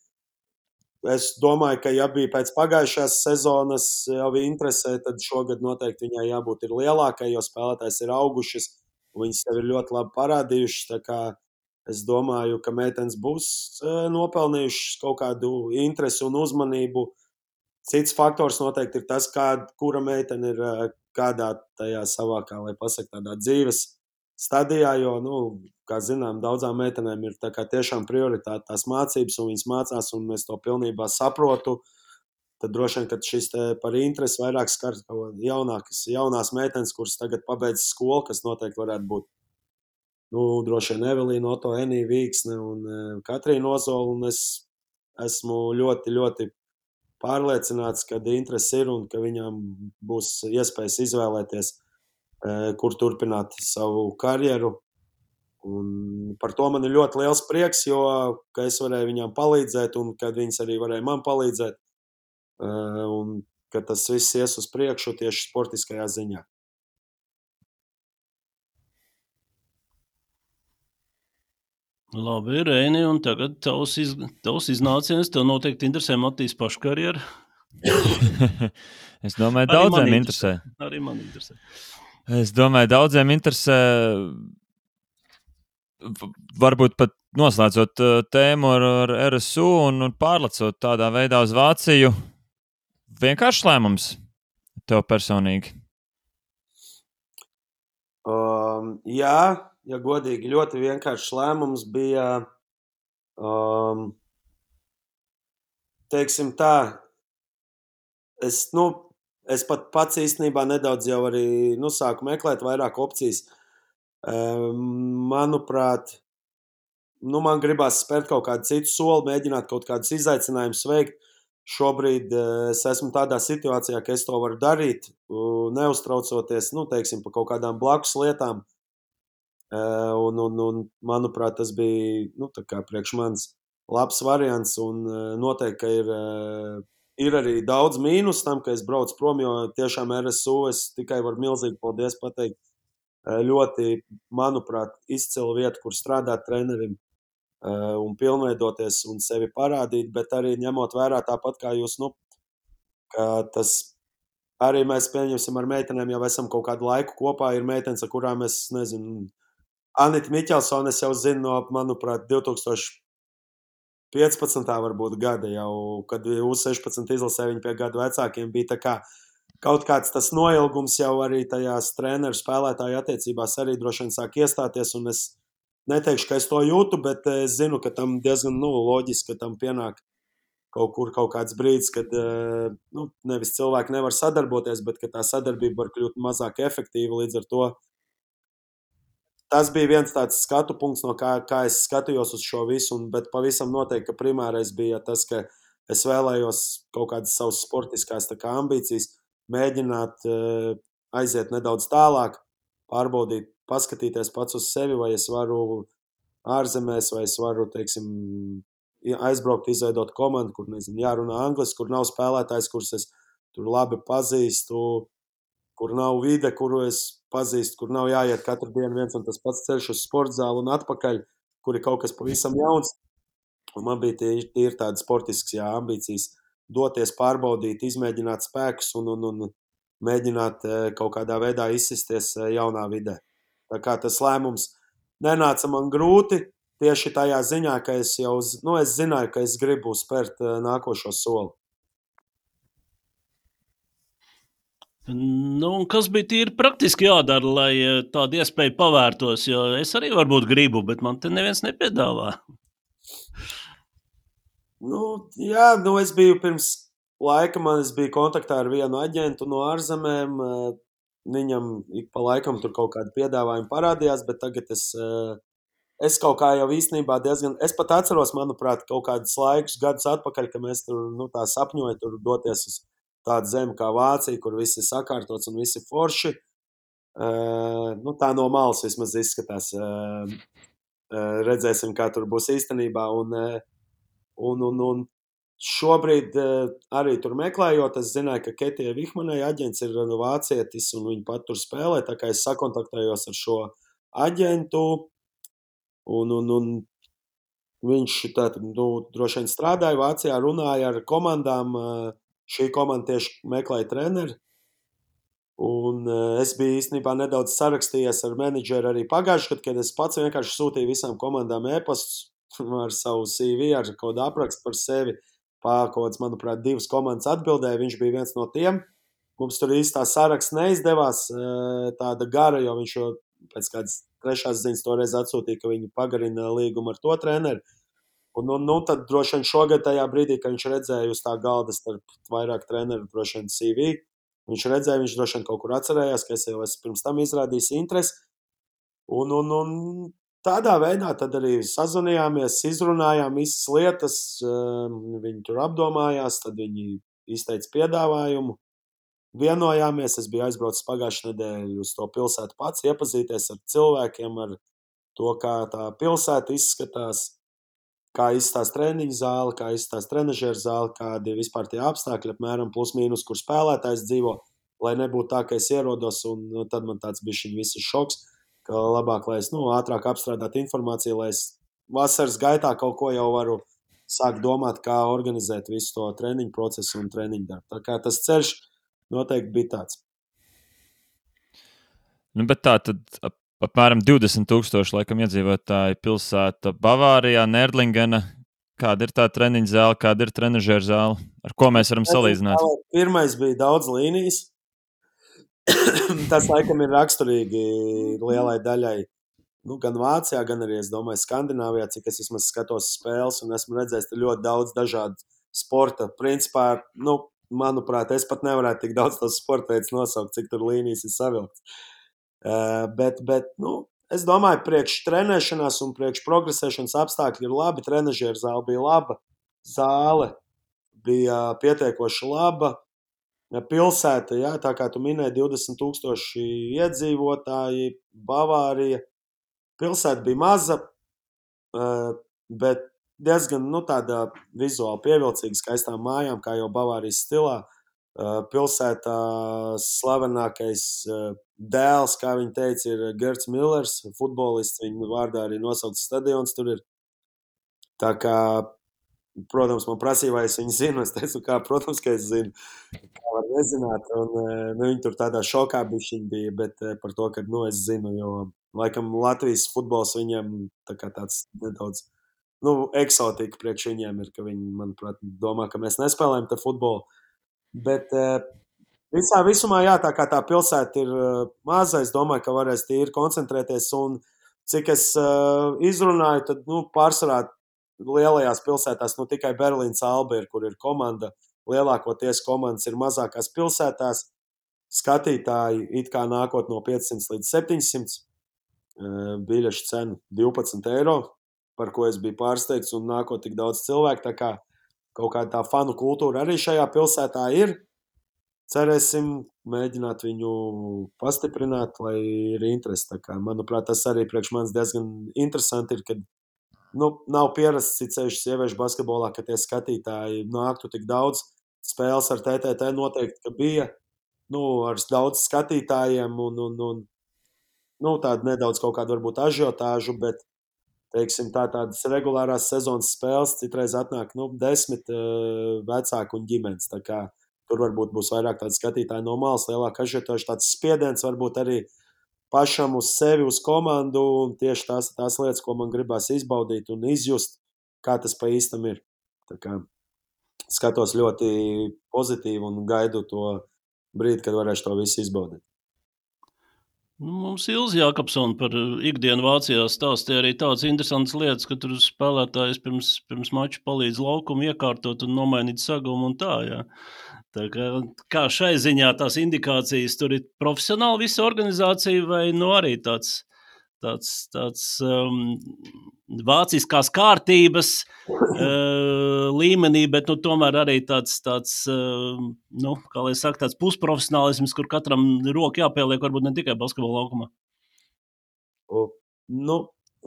Es domāju, ka ja bija pēc pagājušās sezonas jau interesē, tad šogad noteikti viņai jābūt ir lielākai, jo spēlētājs ir augušas un viņas sevi ir ļoti labi parādījušas, tā kā es domāju, ka meitenes būs nopelnījušas kaut kādu interesi un uzmanību. Cits faktors noteikti ir tas, kura meitene ir kādā tajā savā, kā lai pasaka, tādā dzīves stadijā, jo, kā zinām, daudzām meitenēm ir tā kā tiešām prioritāte tās mācības, un viņas mācās, un es to pilnībā saprotu. Tad droši vien, kad šis par interesi vairāk skar jaunās meitenes, kuras tagad pabeidz skolu, kas noteikti varētu būt droši vien Evelīna, Oto, Enija Vīksne un Katrīna Ozola, un es esmu ļoti, ļoti pārliecināts, ka interesi ir un ka viņām būs iespējas izvēlēties, kur turpināt savu karjeru. Un par to man ir ļoti liels prieks, jo ka es varēju viņām palīdzēt un kad viņas arī varēja man palīdzēt. Un ka tas viss ies uz priekšu tieši sportiskajā ziņā. Labi, Reini, un tagad tavs iznāciens, tev noteikti interesē Matīs pašu karjeru. Es domāju, daudziem interesē. Arī man interesē. Es domāju, daudziem interesē, varbūt pat noslēdzot tēmu ar RSU un pārlecot tādā veidā uz Vāciju. Vienkāršs lēmums tev personīgi? Jā, ja godīgi, ļoti vienkāršs lēmums bija, teiksim tā, es pat pats īstenībā nedaudz jau arī sāku meklēt vairāk opcijas. Manuprāt, man gribās spērt kaut kādu citu soli, mēģināt kaut kādus izaicinājumus veikt. šobrīd es esmu tādā situācijā, ka es to varu darīt, neuztraucoties, teiksim, par kaut kādām blakus lietām. Un manuprāt, tas bija, tā kā priekš manis labs variants, un noteikti, ka ir arī daudz mīnus tam, ka es braucu prom, jo tiešām RSU es tikai varu milzīgi paldies pateikt. Ļoti, manuprāt, izcila vieta, kur strādāt trenerim un pilnveidoties un sevi parādīt, bet arī ņemot vērā tāpat kā jūs, ka tas arī mēs pieņemsim ar meitenēm, jau esam kaut kādu laiku kopā, ir meitenes, ar kurām es nezinu, Anita Miķelsone, es jau zinu no, manuprāt, 2015. varbūt gada jau, kad U16 izlasē viņi pie gadu vecākiem bija tā kā kaut kāds tas noilgums jau arī tajās treneru spēlētāju attiecībās arī droši vien sāk iestāties, un es neteikšu, ka es to jūtu, bet es zinu, ka tam diezgan loģiski, ka tam pienāk kaut kāds brīdis, kad nevis cilvēki nevar sadarboties, bet ka tā sadarbība var kļūt mazāk efektīva, līdz ar to tas bija viens tāds skatu punkts, no kā es skatījos uz šo visu, bet pavisam noteikti, ka primārais bija tas, ka es vēlējos kaut kādas savas sportiskās ambīcijas, mēģināt aiziet nedaudz tālāk, pārbaudīt, paskatīties pats uz sevi, vai es varu ārzemēs, vai es varu, teiksim, aizbraukt, izveidot komandu, kur, nezinu, jārunā angliski, kur nav spēlētājs, kurus es tur labi pazīstu, kur nav vide, kuru es pazīstu, kur nav jāiet katru dienu viens un tas pats ceļš uz sporta zāli un atpakaļ, kur ir kaut kas pavisam jauns. Un man bija tīri tādas sportiskas ambīcijas doties, pārbaudīt, izmēģināt spēkus un mēģināt kaut kādā veidā izsisties jaunā vidē. Tā kā tas lēmums nenāca man grūti, tieši tajā ziņā, ka es jau es zināju, ka es gribu spērt nākošo soli. Kas bija tīri praktiski jādara, lai tāda iespēja pavērtos, jo es arī varbūt gribu, bet man te neviens nepiedāvā. Es biju pirms laika, es biju kontaktā ar vienu aģentu no ārzemēm, viņam ik pa laikam tur kaut kādi piedāvājumi parādījās, bet tagad es kaut kā jau īstenībā es pat atceros, manuprāt, kaut kādus gadus atpakaļ, ka mēs tur, tā sapņoja tur doties uz tādu zemi kā Vācija, kur viss ir sakārtots un viss ir forši. Tā no malas vismaz izskatās. Redzēsim, kā tur būs īstenībā. Un šobrīd arī tur meklējot, es zināju, ka Ketija Vihmanai aģents ir vācietis un viņa pat tur spēlē, tā kā es sakontaktējos ar šo aģentu un viņš droši vien strādāja Vācijā, runāja ar komandām, šī komanda tieši meklēja treneri. Un es biju īstenībā nedaudz sarakstījies ar menedžeru arī pagājuši, kad es pats vienkārši sūtīju visām komandām e-pastus ar savu CV, ar kaut kādu aprakstu par sevi. Kaut kāds, manuprāt, 2 komandas atbildēja, viņš bija viens no tiem. Mums tur īstā saraksts neizdevās tāda gara, jo viņš jau pēc kādas 3. ziņas toreiz atsūtīja, ka viņi pagarina līgumu ar to treneri. Un tad droši vien šogad tajā brīdī, kad viņš redzēja uz tā galda starp vairāk treneru, droši vien CV, viņš redzēja, viņš droši vien kaut kur atcerējās, ka es jau esmu pirms tam izrādījis interesi. Un tādā veidā tad arī sazvanījāmies, izrunājām visas lietas, viņi tur apdomājās, tad viņi izteica piedāvājumu, vienojāmies, es biju aizbraucis pagājušajā nedēļu uz to pilsētu pats, iepazīties ar cilvēkiem, ar to, kā tā pilsēta izskatās, kā izskatās treniņu zāle, kā izskatās trenažieru zāle, kādi vispār tie apstākļi, apmēram plus mīnus, kur spēlētājs dzīvo, lai nebūtu tā, ka es ierodos, un tad man tāds bišķiņ viss šoks, ka labāk, lai es ātrāk apstrādātu informāciju, lai es vasaras gaitā kaut ko jau varu sākt domāt, kā organizēt visu to treniņu procesu un treniņu darbu. Tā kā tas ceļš noteikti bija tāds. Bet tā tad apmēram 20,000 laikam iedzīvotāji pilsēta Bavārijā, Nerdlingena. Kāda ir tā treniņa zāle, kāda ir trenažera zāle? Ar ko mēs varam salīdzināt? Pirmais bija daudz līnijas. Tas laikam ir raksturīgi lielai daļai. Gan Vācijā, gan arī, es domāju, Skandināvijā, cik es vismaz skatos spēles un esmu redzējis ļoti daudz dažādu sporta. Principā, manuprāt, es pat nevarētu tik daudz tos sporta veidus nosaukt, cik tur līnijas ir savilkts. Bet es domāju, priekš trenēšanās un priekš progresēšanas apstākļi ir labi. Trenažieru zāle bija laba zāle. bija pietiekoši laba. Pilsēta, jā, tā kā tu minēji, 20,000 iedzīvotāji, Bavārija. Pilsēta bija maza, bet diezgan tāda vizuāli pievilcīga, skaistām mājām, kā jau Bavārijas stilā. Pilsētā slavenākais dēls, kā viņi teica, ir Gerts Millers, futbolists. Viņa vārdā arī nosaukts stadions tur ir. Tā kā, protams, man prasīja, vai es viņu zinu. Es teicu, protams, ka es zinu. Kā var nezināt. Un, viņi tur tādā šokā bija, bet par to, ka es zinu, jo laikam Latvijas futbols viņiem tāds nedaudz eksotika priekš viņiem ir, ka viņi, manuprāt, domā, ka mēs nespēlējam te futbolu. Bet visumā, jā, tā kā tā pilsēta ir maza, es domāju, ka varēs tīri koncentrēties. Un cik es izrunāju, tad pārsvarā lielajās pilsētās tikai Berlīnas Alba ir, kur ir komanda. Lielākoties komandas ir mazākās pilsētās. Skatītāji it kā nākot no 500 līdz 700. Biļešu cena 12 eiro, par ko es biju pārsteigts, un nākot tik daudz cilvēku. Tā kā kaut kāda tā fanu kultūra arī šajā pilsētā ir. Cerēsim mēģināt viņu pastiprināt, lai ir interesi. Tā kā, manuprāt, tas arī priekš manis diezgan interesanti ir, kad nav pierasts ceļš sieviešu basketbolā, ka tie skatītāji nāktu tik daudz. Spēles ar TTT noteikti, ka bija ar daudz skatītājiem un tāda nedaudz kaut kāda varbūt ažiotāžu, bet teiksim, tādas regulārās sezonas spēles citreiz atnāk 10 vecāku un ģimenes. Tā kā tur varbūt būs vairāk tādi skatītāji no malas, lielāka ažiotāža, tāds spiediens varbūt arī pašam uz sevi, uz komandu, un tieši tās lietas, ko man gribās izbaudīt un izjust, kā tas pa īstam ir. Tā kā skatos ļoti pozitīvi un gaidu to brīdi, kad varēšu to visu izbaudīt. Mums Ilze Jākapsone par ikdienu Vācijā stāstīja arī tādas interesantas lietas, ka tur spēlētājs pirms mača palīdz laukumu iekārtot un nomainīt sagumu un tā, jā. Tā kā šai ziņā tās indikācijas tur ir profesionāli visa organizācija vai arī tāds vāciskās kārtības līmenī, bet tomēr arī tāds kā lai saka, tāds pusprofesionālisms, kur katram roku jāpieliek, varbūt ne tikai basketbola laukumā.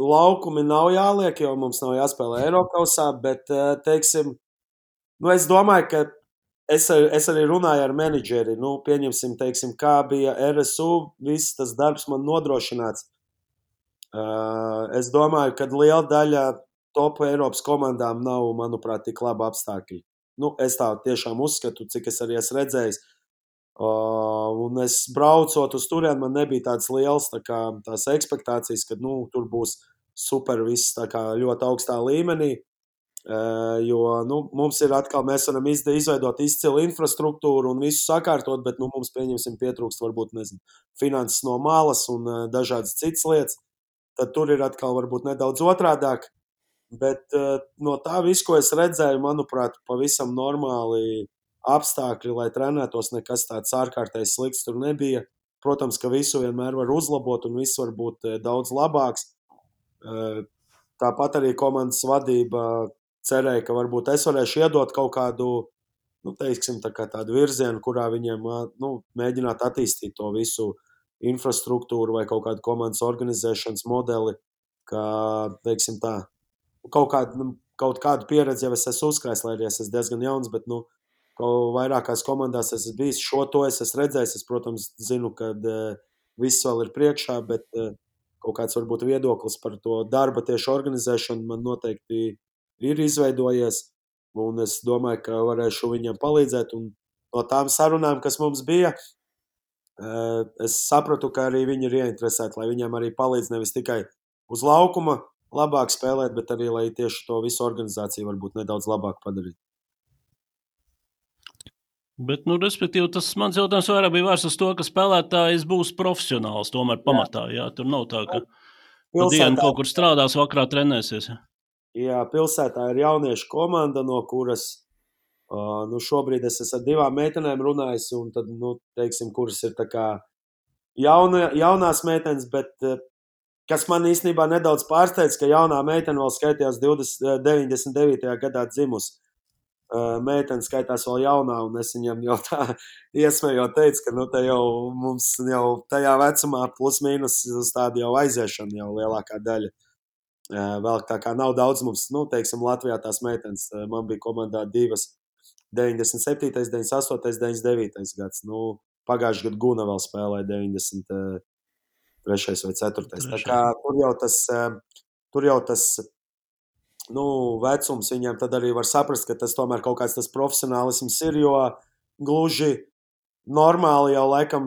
Laukumi nav jāliek, jo mums nav jāspēlē Eirokausā, bet, teiksim, es domāju, ka es arī runāju ar menedžeri, pieņemsim, teiksim, kā bija RSU, viss tas darbs man nodrošināts. Es domāju, ka liela daļa top Eiropas komandām nav, manuprāt, tik laba apstākļi. Es tā tiešām uzskatu, cik es arī esmu redzējis. Un es braucot uz turieni, man nebija tādas lielas tās ekspektācijas, ka tur būs super viss ļoti augstā līmenī. Jo mums ir atkal, mēs varam izveidot izcilu infrastruktūru un visu sakārtot, bet mums pietrūkst varbūt, finanses no malas un dažādas citas lietas. Tad tur ir atkal varbūt nedaudz otrādāk, bet no tā visu, ko es redzēju, manuprāt, pavisam normāli apstākļi, lai trenētos, nekas tāds ārkārtējs slikts tur nebija. Protams, ka visu vienmēr var uzlabot un viss var būt daudz labāks. Tāpat arī komandas vadība cerēja, ka varbūt es varēšu iedot kaut kādu, teiksim, tādu virzienu, kurā viņiem mēģināt attīstīt to visu infrastruktūru vai kaut kādu komandas organizēšanas modeli, kā, teiksim tā, kaut kādu pieredzi jau es esmu uzkrājis, lai arī es esmu diezgan jauns, bet, vairākās komandās es esmu bijis, šo to es esmu redzējis, es, protams, zinu, ka viss vēl ir priekšā, bet kaut kāds varbūt viedoklis par to darba tieši organizēšanu man noteikti ir izveidojies, un es domāju, ka varēšu viņam palīdzēt, un no tām sarunām, kas mums bija, es sapratu, ka arī viņi ir ieinteresēti, lai viņiem arī palīdz nevis tikai uz laukuma labāk spēlēt, bet arī, lai tieši to visu organizāciju varbūt nedaudz labāk padarīt. Bet, respektīvi, tas mans jautājums vairāk bija vērsts uz to, ka spēlētājs būs profesionāls tomēr pamatā, jā, tur nav tā, ka dienu kaut kur strādās, vakarā trenēsies. Jā, pilsētā ir jauniešu komanda, no kuras šobrīd es esmu ar 2 meitenēm runājis, un tad, teiksim, kuras ir tā kā jaunās meitenes, bet kas man īstenībā nedaudz pārsteidz, ka jaunā meitene vēl skaitījās 99. gadā dzimusi. meitene skaitās vēl jaunā, un es viņam jau tā iesmējot teicu, ka te jau mums jau tajā vecumā plus mīnus uz tādu jau aiziešanu jau lielākā daļa. Vēl tā kā nav daudz mums, teiksim, Latvijā tās meitenes. Man bija komandā 2, 97, 98, 99 gads. Pagājušajā gadā Guna vēl spēlēja 93. vai 4. Tā kā tur jau tas vecums viņiem tad arī var saprast, ka tas tomēr kaut kāds tas profesionālisms ir, jo gluži normāli jau laikam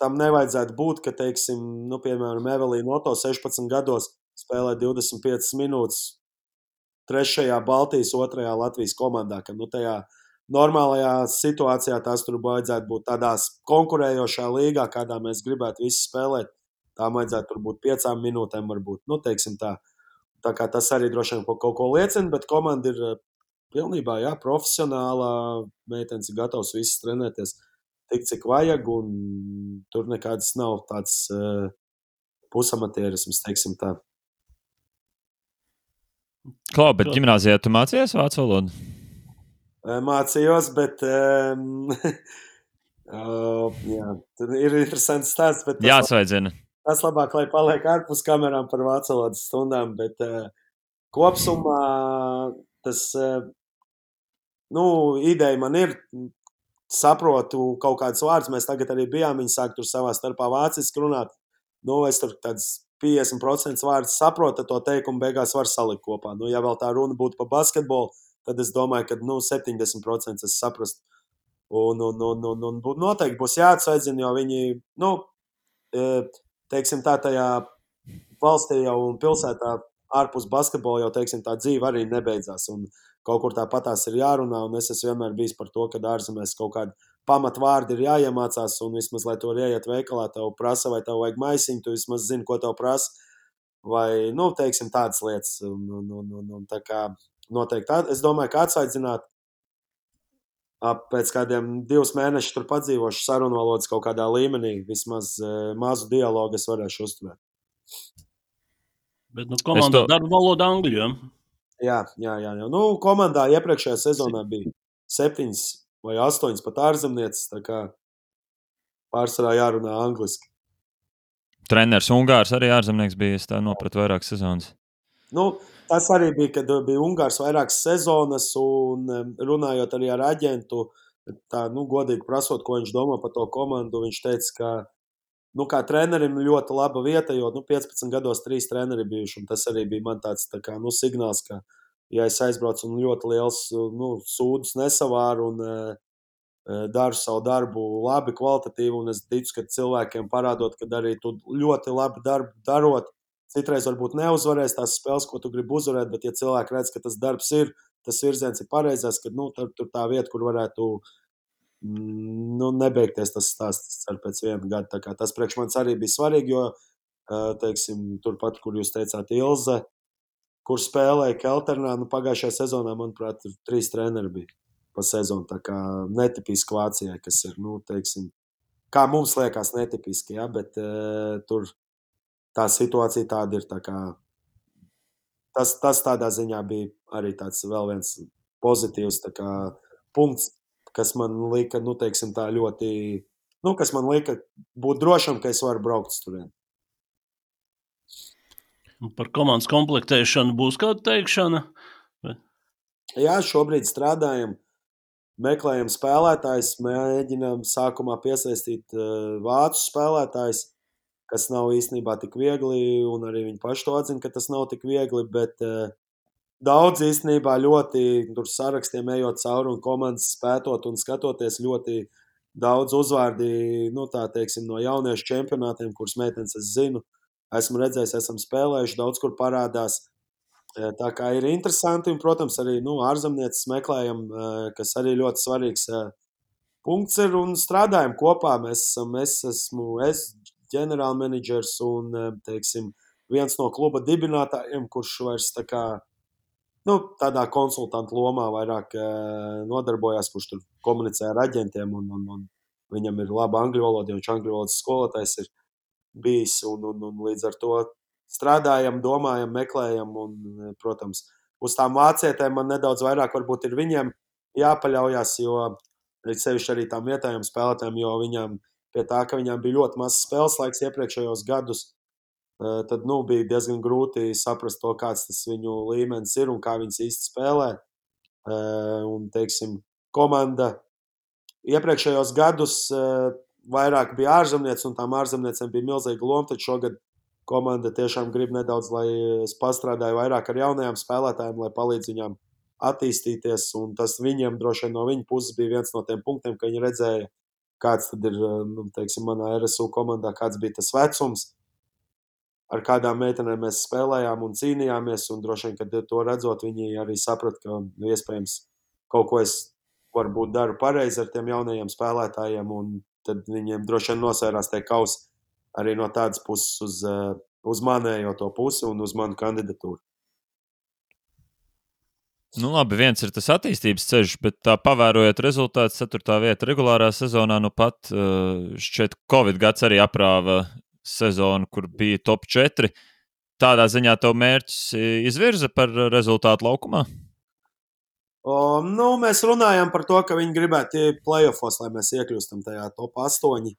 tam nevajadzētu būt, ka, teiksim, piemēram, Evelīna Oto 16 gados spēlē 25 minūtes 3. Baltijas, 2. Latvijas komandā, ka tajā normālajā situācijā tās tur vajadzētu būt tādās konkurējošā līgā, kādā mēs gribētu visi spēlēt. Tām vajadzētu tur būt 5 minūtēm varbūt, teiksim tā. Tā kā tas arī droši vien kaut ko liecina, bet komanda ir pilnībā, profesionālā, meitenes ir gatavs visas trenēties tik, cik vajag, un tur nekāds nav tāds pusamatierisms, teiksim tā. Klau, bet ģimnāzijā tu mācījies vācu valodu? Mācījos, bet tur ir interesants stāsts. Jāsveidzina. Tas labāk, lai paliek ārpus kamerām par vācu valodas stundām, bet kopsumā tas, ideja man ir, saprotu kaut kādus vārdus, mēs tagad arī bijām, viņi sāk tur savā starpā vāciski runāt, es tur tāds 50% vārdus saprotu, to teikumu beigās var salikt kopā. Ja vēl tā runa būtu par basketbolu, tad es domāju, ka 70% es saprastu. Un noteikti būs jāatsveidzina, jo viņi, teiksim tā, tajā valstī jau un pilsētā ārpus basketbola jau, teiksim, tā dzīve arī nebeidzās. Un kaut kur tāpatās ir jārunā, un es esmu vienmēr bijis par to, ka ārzemēs kaut kādi pamatvārdi ir jāiemācās, un vismaz, lai to ieiet veikalā, tev prasa, vai tev vajag maisiņu, tu vismaz zini, ko tev prasa, vai, teiksim, tādas lietas. Un tā kā noteikti, es domāju, ka atsvaidzināt pēc kādiem 2 mēnešus tur padzīvošu sarunu valodas kaut kādā līmenī, vismaz mazu dialogu es varēšu uzturēt. Bet komandā darba valoda angļu, Jā. Komandā iepriekšējā sezonā bija 7 vai 8 pat ārzemnieces, tā kā pārsvarā jārunā angliski. Treneris Ungārs arī ārzemnieks bija, es tā nopratu vairākas sezonas. Tas arī bija, kad bija Ungārs vairākas sezonas, un runājot arī ar aģentu, tā, godīgi prasot, ko viņš domā par to komandu, viņš teica, ka, kā trenerim ļoti laba vieta, jo, 15 gados 3 treneri bijuši, un tas arī bija man tāds, tā kā, signāls, ka, ja es aizbraucu un ļoti liels, sūdus nesavāru un daru savu darbu labi, kvalitatīvi, un es ticu, ka cilvēkiem parādot, ka arī tu ļoti labi darbu darot, citreiz varbūt neuzvarēs tās spēles, ko tu gribi uzvarēt, bet ja cilvēki redz, ka tas darbs ir, tas virziens ir pareizais, ka, tur tā vieta, kur varētu nebeigties tas stāsts ar pēc 1 gadu. Tā kā tas priekš manis arī bija svarīgi, jo, teiksim, turpat, kur jūs teicāt Ilze, kur spēlēja Kelternā, pagājušajā sezonā, manuprāt, 3 treneri bija pa sezonu. Tā kā netipiski Vācijai, kas ir, teiksim, kā mums liekas netipiski, bet tur tā situācija tāda ir. Tā kā tas tādā ziņā bija arī tāds vēl viens pozitīvs tā kā punkts, kas man lika, teiksim, tā ļoti, kas man lika būt drošam, ka es varu braukt uz turieni. Par komandas komplektēšanu būs kāda teikšana? Jā, šobrīd strādājam, meklējam spēlētājus, mēģinām sākumā piesaistīt vācu spēlētājus, kas nav īstenībā tik viegli, un arī viņi paši to atzina, ka tas nav tik viegli, bet daudz īstenībā ļoti tur sarakstiem ejot cauri un komandas spētot un skatoties ļoti daudz uzvārdi, tā teiksim, no jauniešu čempionātiem, kuras meitenes es zinu, esmu redzējis, esam spēlējuši, daudz kur parādās. Tā kā ir interesanti, un, protams, arī ārzemnieces meklējam, kas arī ļoti svarīgs punkts ir, un strādājam kopā. Es esmu ģenerālmenedžers un, teiksim, viens no kluba dibinātājiem, kurš vairs tā kā, tādā konsultantu lomā vairāk nodarbojās, kurš tur komunicē ar aģentiem, un viņam ir laba angļu valoda, jo viņš angļu valodas skolotājs ir bijis, un līdz ar to strādājam, domājam, meklējam, un, protams, uz tām vācietēm man nedaudz vairāk varbūt ir viņiem jāpaļaujas, jo sevišķi arī tām vietējām spēlētājiem, jo viņām pie tā, ka viņām bija ļoti mazs spēles laiks iepriekšējos gadus, tad bija diezgan grūti saprast to, kāds tas viņu līmenis ir un kā viņas īsti spēlē. Un, teiksim, komanda iepriekšējos gadus vairāk bija ārzemniece, un tām ārzemniecēm bija milzīga loma, tad šogad komanda tiešām grib nedaudz, lai es pastrādāju vairāk ar jaunajām spēlētājiem, lai palīdz viņām attīstīties, un tas viņiem droši vien no viņa puses bija viens no tiem punktiem, ka viņi redzēja, kāds tad ir, teiksim, manā RSU komandā, kāds bija tas vecums, ar kādām meitenēm mēs spēlējām un cīnījāmies, un droši vien, kad to redzot, viņi arī saprat, ka iespējams kaut ko es varbūt daru pareizi ar tiem jaunajiem spēlētājiem, un tad viņiem droši vien nosvērās tie kausi arī no tādas puses uz manējo to pusi un uz manu kandidatūru. Nu, labi, viens ir tas attīstības ceļš, bet tā pavērojot rezultātus, 4. vieta regulārā sezonā, nu pat šķiet Covid gads arī aprāva sezonu, kur bija top 4. Tādā ziņā tev mērķis izvirza par rezultātu laukumā? Mēs runājam par to, ka viņi gribētu playoffos, lai mēs iekļūstam tajā top 8.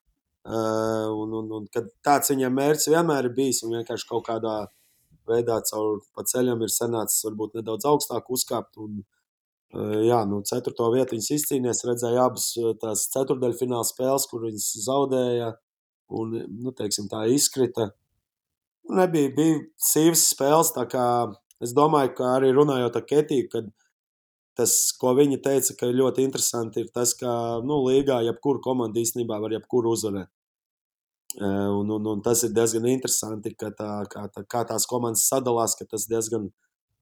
Un kad tāds viņiem mērķis vienmēr ir bijis un vienkārši kaut kādā veidā caur pa ceļam ir sanācis varbūt nedaudz augstāk uzkāpt. Un, 4. vietu viņas izcīnījās, redzēja abas tās ceturdaļfināla spēles, kur viņas zaudēja un, teiksim, tā izkrita. Bija sīvas spēles, tā kā es domāju, ka arī runājot ar Ketiju, kad tas, ko viņa teica, ka ļoti interesanti ir tas, ka, līgā jebkuru komandu īstenībā var jebkuru uzvarēt. Un tas ir diezgan interesanti, ka kā tās komandas sadalās, ka tas diezgan,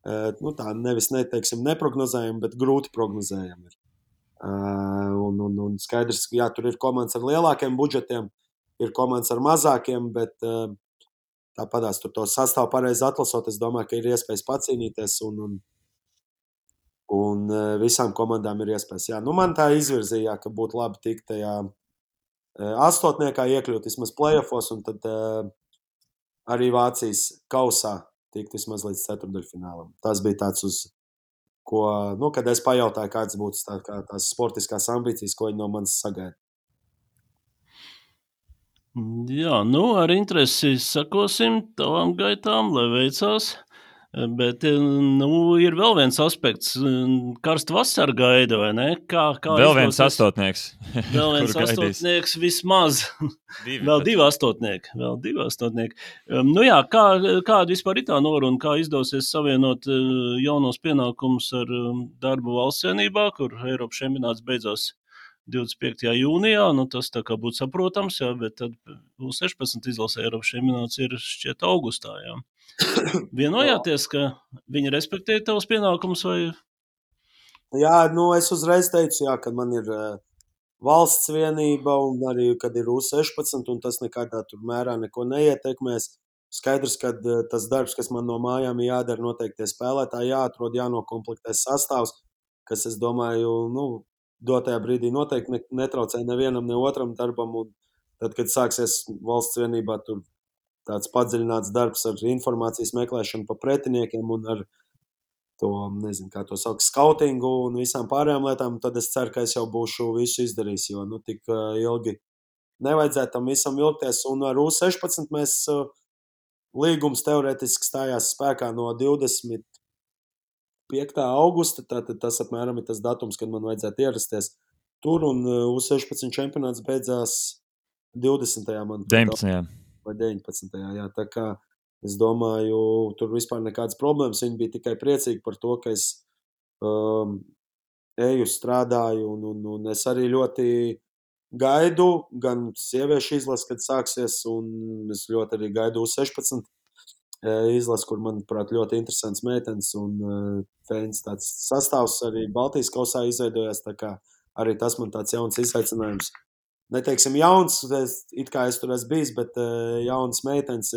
tā nevis neteiksim neprognozējami, bet grūti prognozējami ir. Un skaidrs, ka jā, tur ir komandas ar lielākiem budžetiem, ir komandas ar mazākiem, bet tāpatās tur to sastāvu pareizi atlasot, es domāju, ka ir iespējas pacīnīties un visām komandām ir iespējas. Jā, man tā izvirzīja, ka būtu labi tikt tajā astotniekā iekļūt vismaz playoffos, un tad arī Vācijas kausā tikt vismaz līdz ceturdaļfinālam. Tas bija tāds, uz ko, kad es pajautāju, kāds būtu tās sportiskās ambīcijas, ko viņi no manis sagaida. Jā, ar interesi sakosim tavām gaitām, lai veicās. Bet ir vēl viens aspekts, karsta vasara gaida, vai ne? Vēl viens astotnieks. Vēl viens astotnieks vismaz. Vēl divi astotnieki. Kāda vispār ir tā noruna, kā izdosies savienot jaunos pienākumus ar darbu valsts vienībā, kur Eiropas čempionāts beidzās 25. jūnijā, tas tā kā būtu saprotams, jā, bet tad U16 izlasē Eiropas čempionāts ir šķiet augustā, jā. Vienojāties, ka viņi respektē tavus pienākumus? Vai? Jā, es uzreiz teicu, jā, ka man ir valsts vienība un arī, kad ir U16, un tas nekādā tur mērā neko neietekmēs. Skaidrs, ka tas darbs, kas man no mājām jādara, noteikti spēlētāji jāatrod, jānokomplektē sastāvs, kas, es domāju, dotajā brīdī noteikti netraucē nevienam, ne otram darbam, un tad, kad sāksies valsts vienībā, tur tāds padziļināts darbs ar informācijas meklēšanu pa pretiniekiem un ar to, nezinu, kā to sauc, skautingu un visām pārējām lietām, tad es ceru, ka es jau būšu visu izdarījis, jo, tik ilgi nevajadzētu tam visam vilkties, un ar U16 mēs līgums teorētiski stājās spēkā no 25. augusta, tātad tas apmēram ir tas datums, kad man vajadzētu ierasties tur, un U16 čempionāts beidzās 20. man. 19. Vai 19. Jā, tā kā es domāju, tur vispār nekādas problēmas. Viņi bija tikai priecīgi par to, ka es eju, strādāju, un es arī ļoti gaidu gan sieviešu izlasi, kad sāksies, un es ļoti arī gaidu U16 izlasi, kur, manuprāt, ļoti interesants meitenes un fēns tāds sastāvs arī Baltijas kausā izveidojās, tā kā arī tas man tāds jauns izaicinājums. Neteiksim jauns, it kā es tur esmu bijis, bet jaunas meitenes,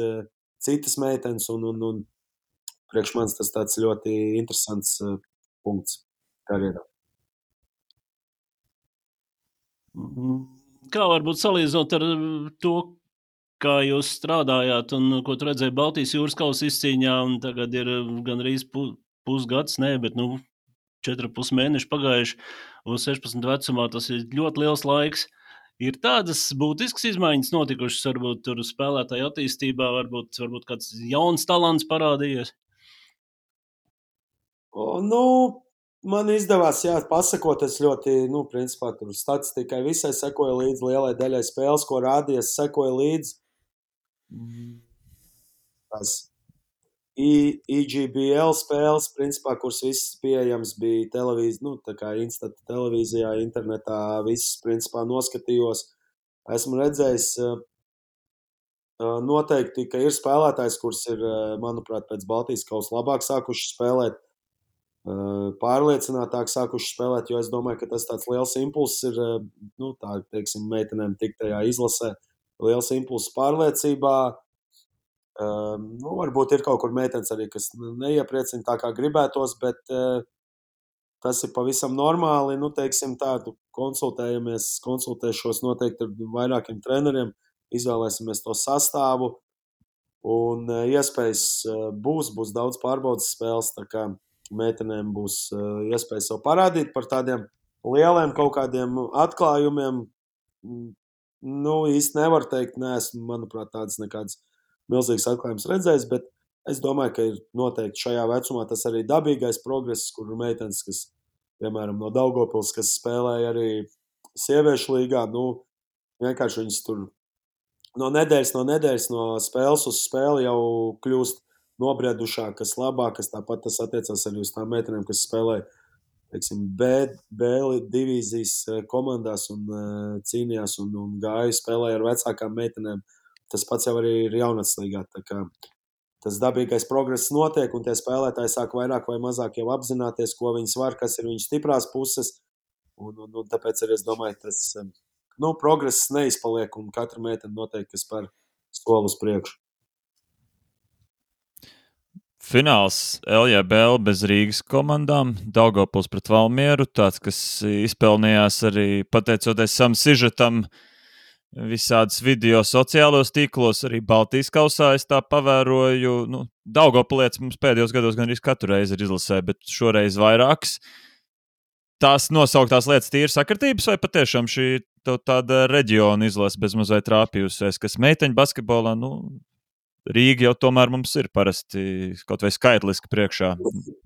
citas meitenes, un priekš manis tas tāds ļoti interesants punkts karjerā. Kā varbūt salīdzinot ar to, kā jūs strādājāt un ko tu redzēji Baltijas jūras kausa izcīņā, un tagad ir gandrīz pusgads, bet 4,5 mēneši pagājuši uz 16 vecumā. Tas ir ļoti liels laiks. Ir tādas būtiskas izmaiņas notikušas, varbūt tur spēlētāju attīstībā, varbūt kāds jauns talants parādījies. Man izdevās, pasakot, es ļoti, principā tur statistikai visai sekoju līdzi, lielai daļai spēles, ko rādīja, es sekoju līdzi. Tās EGBL spēles, principā, kuras visas pieejams bija televīzija, tā kā Instant televīzijā, internetā, visas, principā, noskatījos. Esmu redzējis noteikti, ka ir spēlētājs, kurš ir, manuprāt, pēc Baltijas kausa labāk sākuši spēlēt, pārliecinātāk sākuši spēlēt, jo es domāju, ka tas tāds liels impulss ir, meitenēm tik tajā izlasē, liels impulss pārliecībā. Varbūt ir kaut kur meitenes arī, kas neiepriecina tā, kā gribētos, bet tas ir pavisam normāli. Tādu konsultēšos noteikti ar vairākiem treneriem, izvēlēsimies to sastāvu, un iespējas būs daudz pārbaudas spēles, tā kā meitenēm būs iespēja sev parādīt par tādiem lieliem kaut kādiem atklājumiem. Īsti nevar teikt, neesmu, manuprāt, tādas nekādas milzīgas atklājumas redzējis, bet es domāju, ka ir noteikti šajā vecumā tas arī dabīgais progress, kur meitenes, kas, piemēram, no Daugavpils, kas spēlēja arī sieviešu līgā, vienkārši viņas tur no nedēļas, no spēles uz spēli jau kļūst nobriedušākas, labākas. Tāpat tas attiecās arī uz tām meitenēm, kas spēlē, B divīzijas komandās un cīnījās un gāja spēlēja ar vecākām meitenēm. Tas pats jau arī ir jaunatnes līgā. Tas dabīgais progress notiek, un tie spēlētāji sāk vairāk vai mazāk jau apzināties, ko viņas var, kas ir viņas stiprās puses. Un tāpēc arī es domāju, tas progress neizpaliek, un katra meitene noteikti spēr soli uz priekšu. Fināls LJBL bez Rīgas komandām, Daugavpils pret Valmieru, tāds, kas izpelnījās arī pateicoties savam sižetam, visādas video sociālos tīklos, arī Baltijas kausā es tā pavēroju. Daugavpilietis mums pēdējos gados gan arī katru reizi ir izlasē, bet šoreiz vairākas. Tās nosauktās lietas tīri sakritības, vai patiešām šī tāda reģiona izlase bez mazliet trāpījusies, kas meiteņu basketbolā, Rīga jau tomēr mums ir parasti kaut vai skaitliski priekšā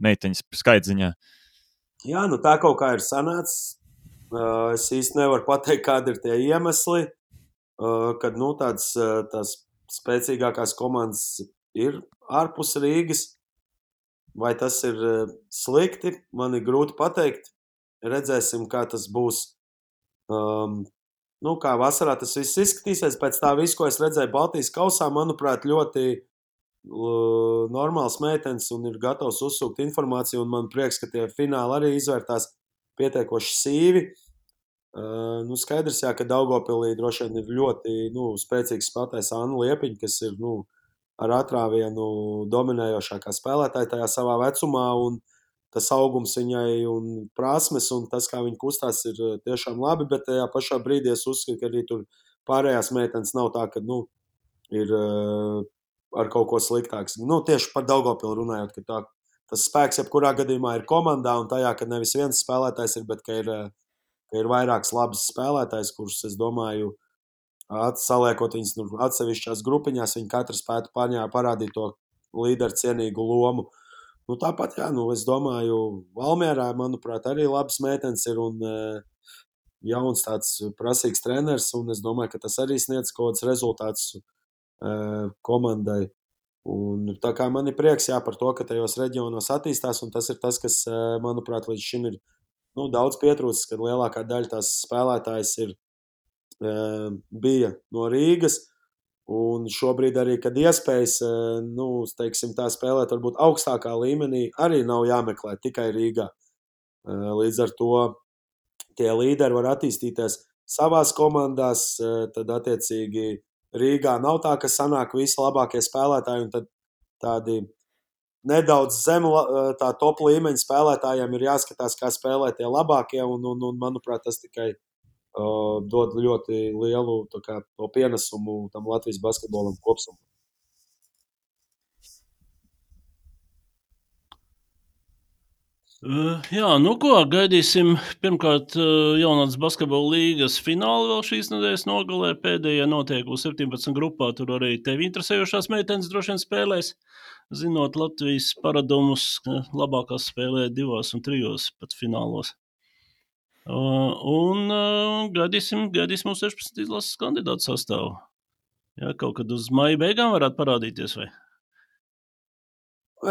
meiteņas skaitziņā. Jā, tā kaut kā ir sanācis. Es īsti nevaru pateikt, kādi ir tie iemesli, kad tās spēcīgākās komandas ir ārpus Rīgas. Vai tas ir slikti, man ir grūti pateikt. Redzēsim, kā tas būs. Kā vasarā tas viss izskatīsies. Pēc tā visu, ko es redzēju Baltijas kausā, manuprāt, ļoti normāls meitenes un ir gatavs uzsūkt informāciju. Un man prieks, ka tie fināli arī izvērtās pietiekoši sīvi. Skaidrs, ka Daugavpilī droši vien ir ļoti spēcīgs spēlētājs Anna Liepiņa, kas ir ar atrāvienu dominējošākā spēlētāja tajā savā vecumā. Un tas augums viņai un prasmes un tas, kā viņa kustās, ir tiešām labi, bet tajā pašā brīdī es uzskatu, ka arī tur pārējās meitenes nav tā, ka ir ar kaut ko sliktāks. Tieši par Daugavpilu runājot, ka tas spēks jebkurā gadījumā ir komandā un tajā, ka nevis viens spēlētājs ir, bet ka ir vairāks labs spēlētājs, kurus, es domāju, saliekot viņus atsevišķās grupiņās, viņi katrs spētu parādīt to līderu cienīgu lomu. Tāpat, es domāju, Valmierā, manuprāt, arī labs meitenes ir un jauns tāds prasīgs treneris, un es domāju, ka tas arī sniedz kaut kāds rezultāts komandai. Un tā kā man ir prieks, par to, ka tajos reģionos attīstās, un tas ir tas, kas, manuprāt, līdz šim ir daudz pietrūcis, kad lielākā daļa tās spēlētājas bija no Rīgas. Un šobrīd arī, kad iespējas, tā spēlēt varbūt augstākā līmenī, arī nav jāmeklē tikai Rīgā. Līdz ar to tie līderi var attīstīties savās komandās, tad attiecīgi Rīgā nav tā, ka sanāk visi labākie spēlētāji, un tad tādi nedaudz zem tā top līmeņa spēlētājiem ir jāskatās, kā spēlē tie labākie, un manuprāt, tas tikai dod ļoti lielu to pienesumu tam Latvijas basketbolam kopsumā. Jā, nu ko, gaidīsim. Pirmkārt, jaunatnes basketbola līgas fināli vēl šīs nedēļas nogalē. Pēdējie notiek uz 17 grupā. Tur arī tevi interesējošās meitenes droši vien spēlēs. Zinot Latvijas paradumus, labākās spēlē 2 un 3 pat finālos. Un gaidīsim uz 16 izlases kandidātu sastāvu. Jā, kaut kad uz maija beigām varētu parādīties, vai?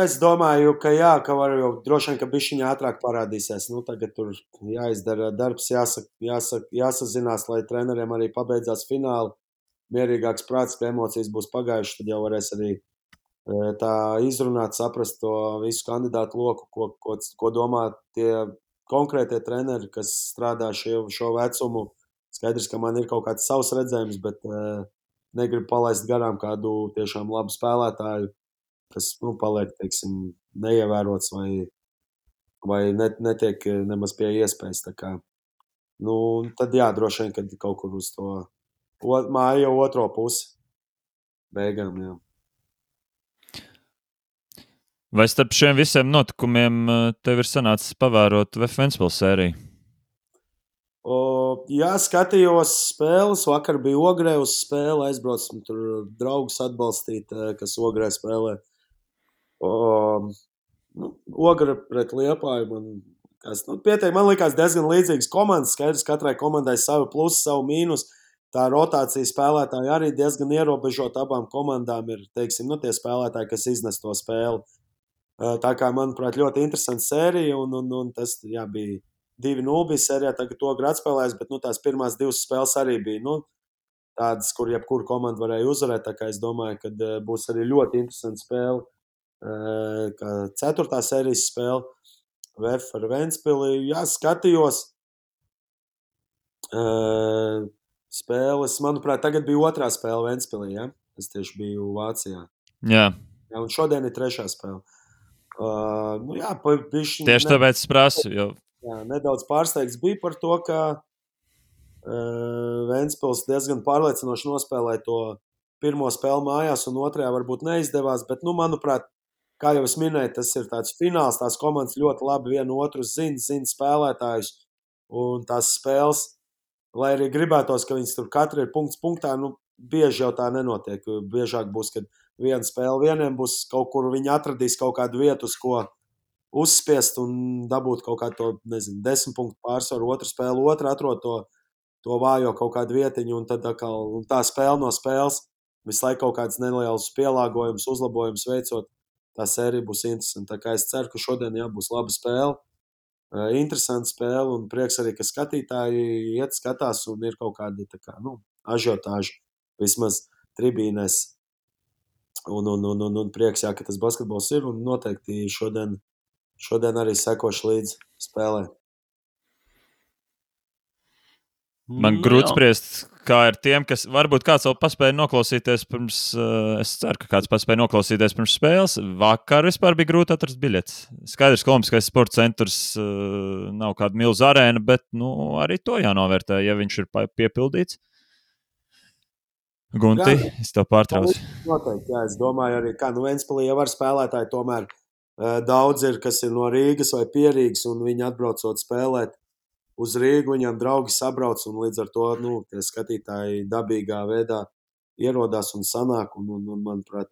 Es domāju, ka jā, ka var jau droši vien, ka bišķiņā ātrāk parādīsies. Nu, tagad tur jāizdara darbs, jāsazinās, lai treneriem arī pabeidzās fināli. Mierīgāks prāts, ka emocijas būs pagājušas, tad jau varēs arī tā izrunāt, saprast to visu kandidātu loku, ko domā tie konkrētie treneri, kas strādā šo vecumu. Skaidrs, ka man ir kaut kāds savs redzējums, bet negribu palaist garām kādu tiešām labu spēlētāju, kas paliek, teiksim, neievērots vai netiek nemaz pie iespējas. Tā kā, tad jā, droši vien, kad kaut kur uz to māju jau otro pusi beigām, jā. Vai starp šiem visiem notikumiem tev ir sanācis pavērot VF Ventspils sēriju? Jā, skatījos spēles. Vakar bija Ogrē uz spēli. Aizbraucu tur draugus atbalstīt, kas Ogrē spēlē. Ogra pret Liepāju man likās diezgan līdzīgas komandas. Skaidrs, katrai komandai savu plusu, savu mīnus. Tā rotācija spēlētāji arī diezgan ierobežota. Abām komandām ir, teiksim, tie spēlētāji, kas iznes to spēli. Tā kā, manuprāt, ļoti interesanta sērija, un tas, jā, bija 2-0 bija sērijā, tagad to atspēlēs, bet, tās pirmās 2 spēles arī bija, tādas, kur jebkuru komandu varēja uzvarēt, tā kā es domāju, ka būs arī ļoti interesanta spēle, kā 4. sērijas spēle, VF ar Ventspili. Jā, skatījos spēles, manuprāt, tagad bija 2. spēle Ventspilī, ja? Es tieši biju Vācijā. Jā, un šodien ir 3. spēle. Jā, tieši tāpēc es prasu. Jā, nedaudz pārsteigts bija par to, ka Ventspils diezgan pārliecinoši nospēlēja to pirmo spēli mājās, un otrajā varbūt neizdevās. Bet, manuprāt, kā jau es minēju, tas ir tāds fināls. Tās komandas ļoti labi vienu otru zina spēlētājus. Un tās spēles, lai arī gribētos, ka viņas tur katra ir punkts punktā, bieži jau tā nenotiek. Biežāk būs, kad viena spēle vieniem būs kaut kur, viņi atradīs kaut kādu vietu, uz ko uzspiest un dabūt kaut kādu 10 punktu pārsvaru. Otra spēle, atrod to vājo kaut kādu vietiņu, un tad un tā spēle no spēles visu laiku kaut kāds neliels pielāgojums, uzlabojums veicot. Tā sērija būs interesanta. Tā kā es ceru, ka šodien būs laba spēle, interesanta spēle, un prieks arī, ka skatītāji iet skatās un ir kaut kādi ažiotāži vismaz tribīnēs. Un prieks, jā, ka tas basketbols ir, un noteikti šodien arī sekošu līdz spēlē. Man grūti spriest, kā ir tiem, kas varbūt kāds vēl paspēja noklausīties pirms, es ceru, ka kāds paspēja noklausīties pirms spēles. Vakar vispār bija grūti atrast biļetes. Skaidrs, ka Olimpiskais sporta centrs nav kāda milzu arēna, bet arī to jānovērtē, ja viņš ir piepildīts. Gunti, es tev pārtraucu. Noteikti, jā, es domāju arī, kā Ventspilī jau var spēlētāji, tomēr daudz ir, kas ir no Rīgas vai Pierīgas, un viņi atbraucot spēlēt uz Rīgu, viņam draugi sabrauc, un līdz ar to, tie skatītāji dabīgā veidā ierodās un sanāk, un manuprāt,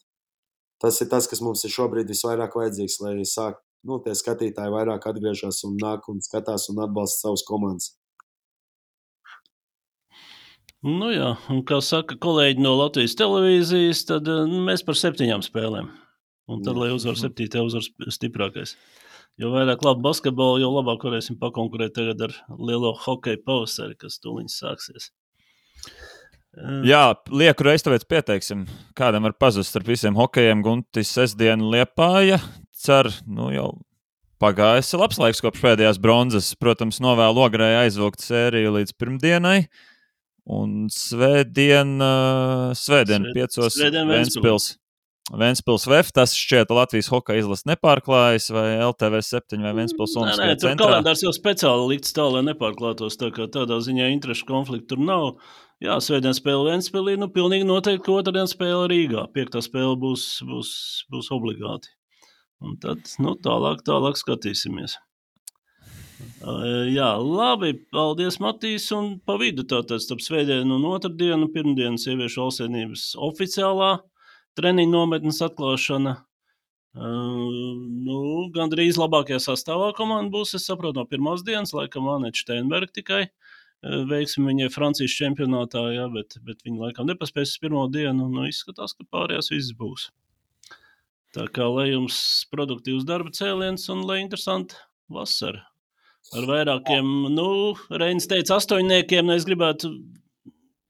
tas ir tas, kas mums ir šobrīd visvairāk vajadzīgs, lai sāk, tie skatītāji vairāk atgriežas un nāk un skatās un atbalsta savus komandas. Jā, un kā saka kolēģi no Latvijas televīzijas, tad mēs par 7 spēlēm. Un tad, lai uzvar 7, uzvar stiprākais. Jo vairāk labu basketbolu, jo labāk varēsim pakonkurēt tagad ar lielo hokeja pavasari, kas tūliņ sāksies. Jā, lieku reiz tāpēc pieteiksim. Kādam var pazust starp visiem hokejiem Guntis sestdienu Liepāja. Cer, jau pagājis labs laiks kopš pēdējās bronzas. Protams, novēlu Ogrē aizvilkt sēriju līdz pirmdienai. Un svētdien 5. Ventspils VF, tas šķiet Latvijas hokeja izlases nepārklājas, vai LTV 7 vai Ventspils Olimpiskajā centrā. Tur kalendārs jau speciāli likts tā, lai nepārklātos, tā kā tādā ziņā interešu konfliktu tur nav. Jā, svētdien spēle Ventspilī, pilnīgi noteikti, ka otrdien spēle Rīgā. 5. spēle būs obligāti. Un tad, tālāk skatīsimies. Jā, labi. Paldies, Matīs. Un pa vidu tātad starp svētdienu un otrdienu, pirmdienu sieviešu valstsvienības oficiālā treniņu nometnes atklāšana. Gandrīz labākajā sastāvā komanda būs, es saprotu, no pirmās dienas, laikam Anete Steinberga tikai. Veiksim viņai Francijas čempionātā, jā, bet viņa laikam nepaspēs uz pirmo dienu. Izskatās, ka pārējās viss būs. Tā kā lai jums produktīvs darba cēliens un lai interesanti vasara. Ar vairākiem, Reinis teica 8, es gribētu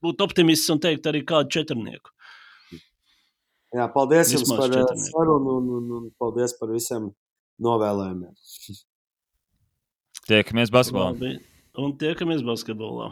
būt optimists un teikt arī kādu 4. Jā, paldies Vismaz jums par 4. sarunu un paldies par visiem novēlējumiem. Tiekamies basketbolā. Un tiekamies basketbolā.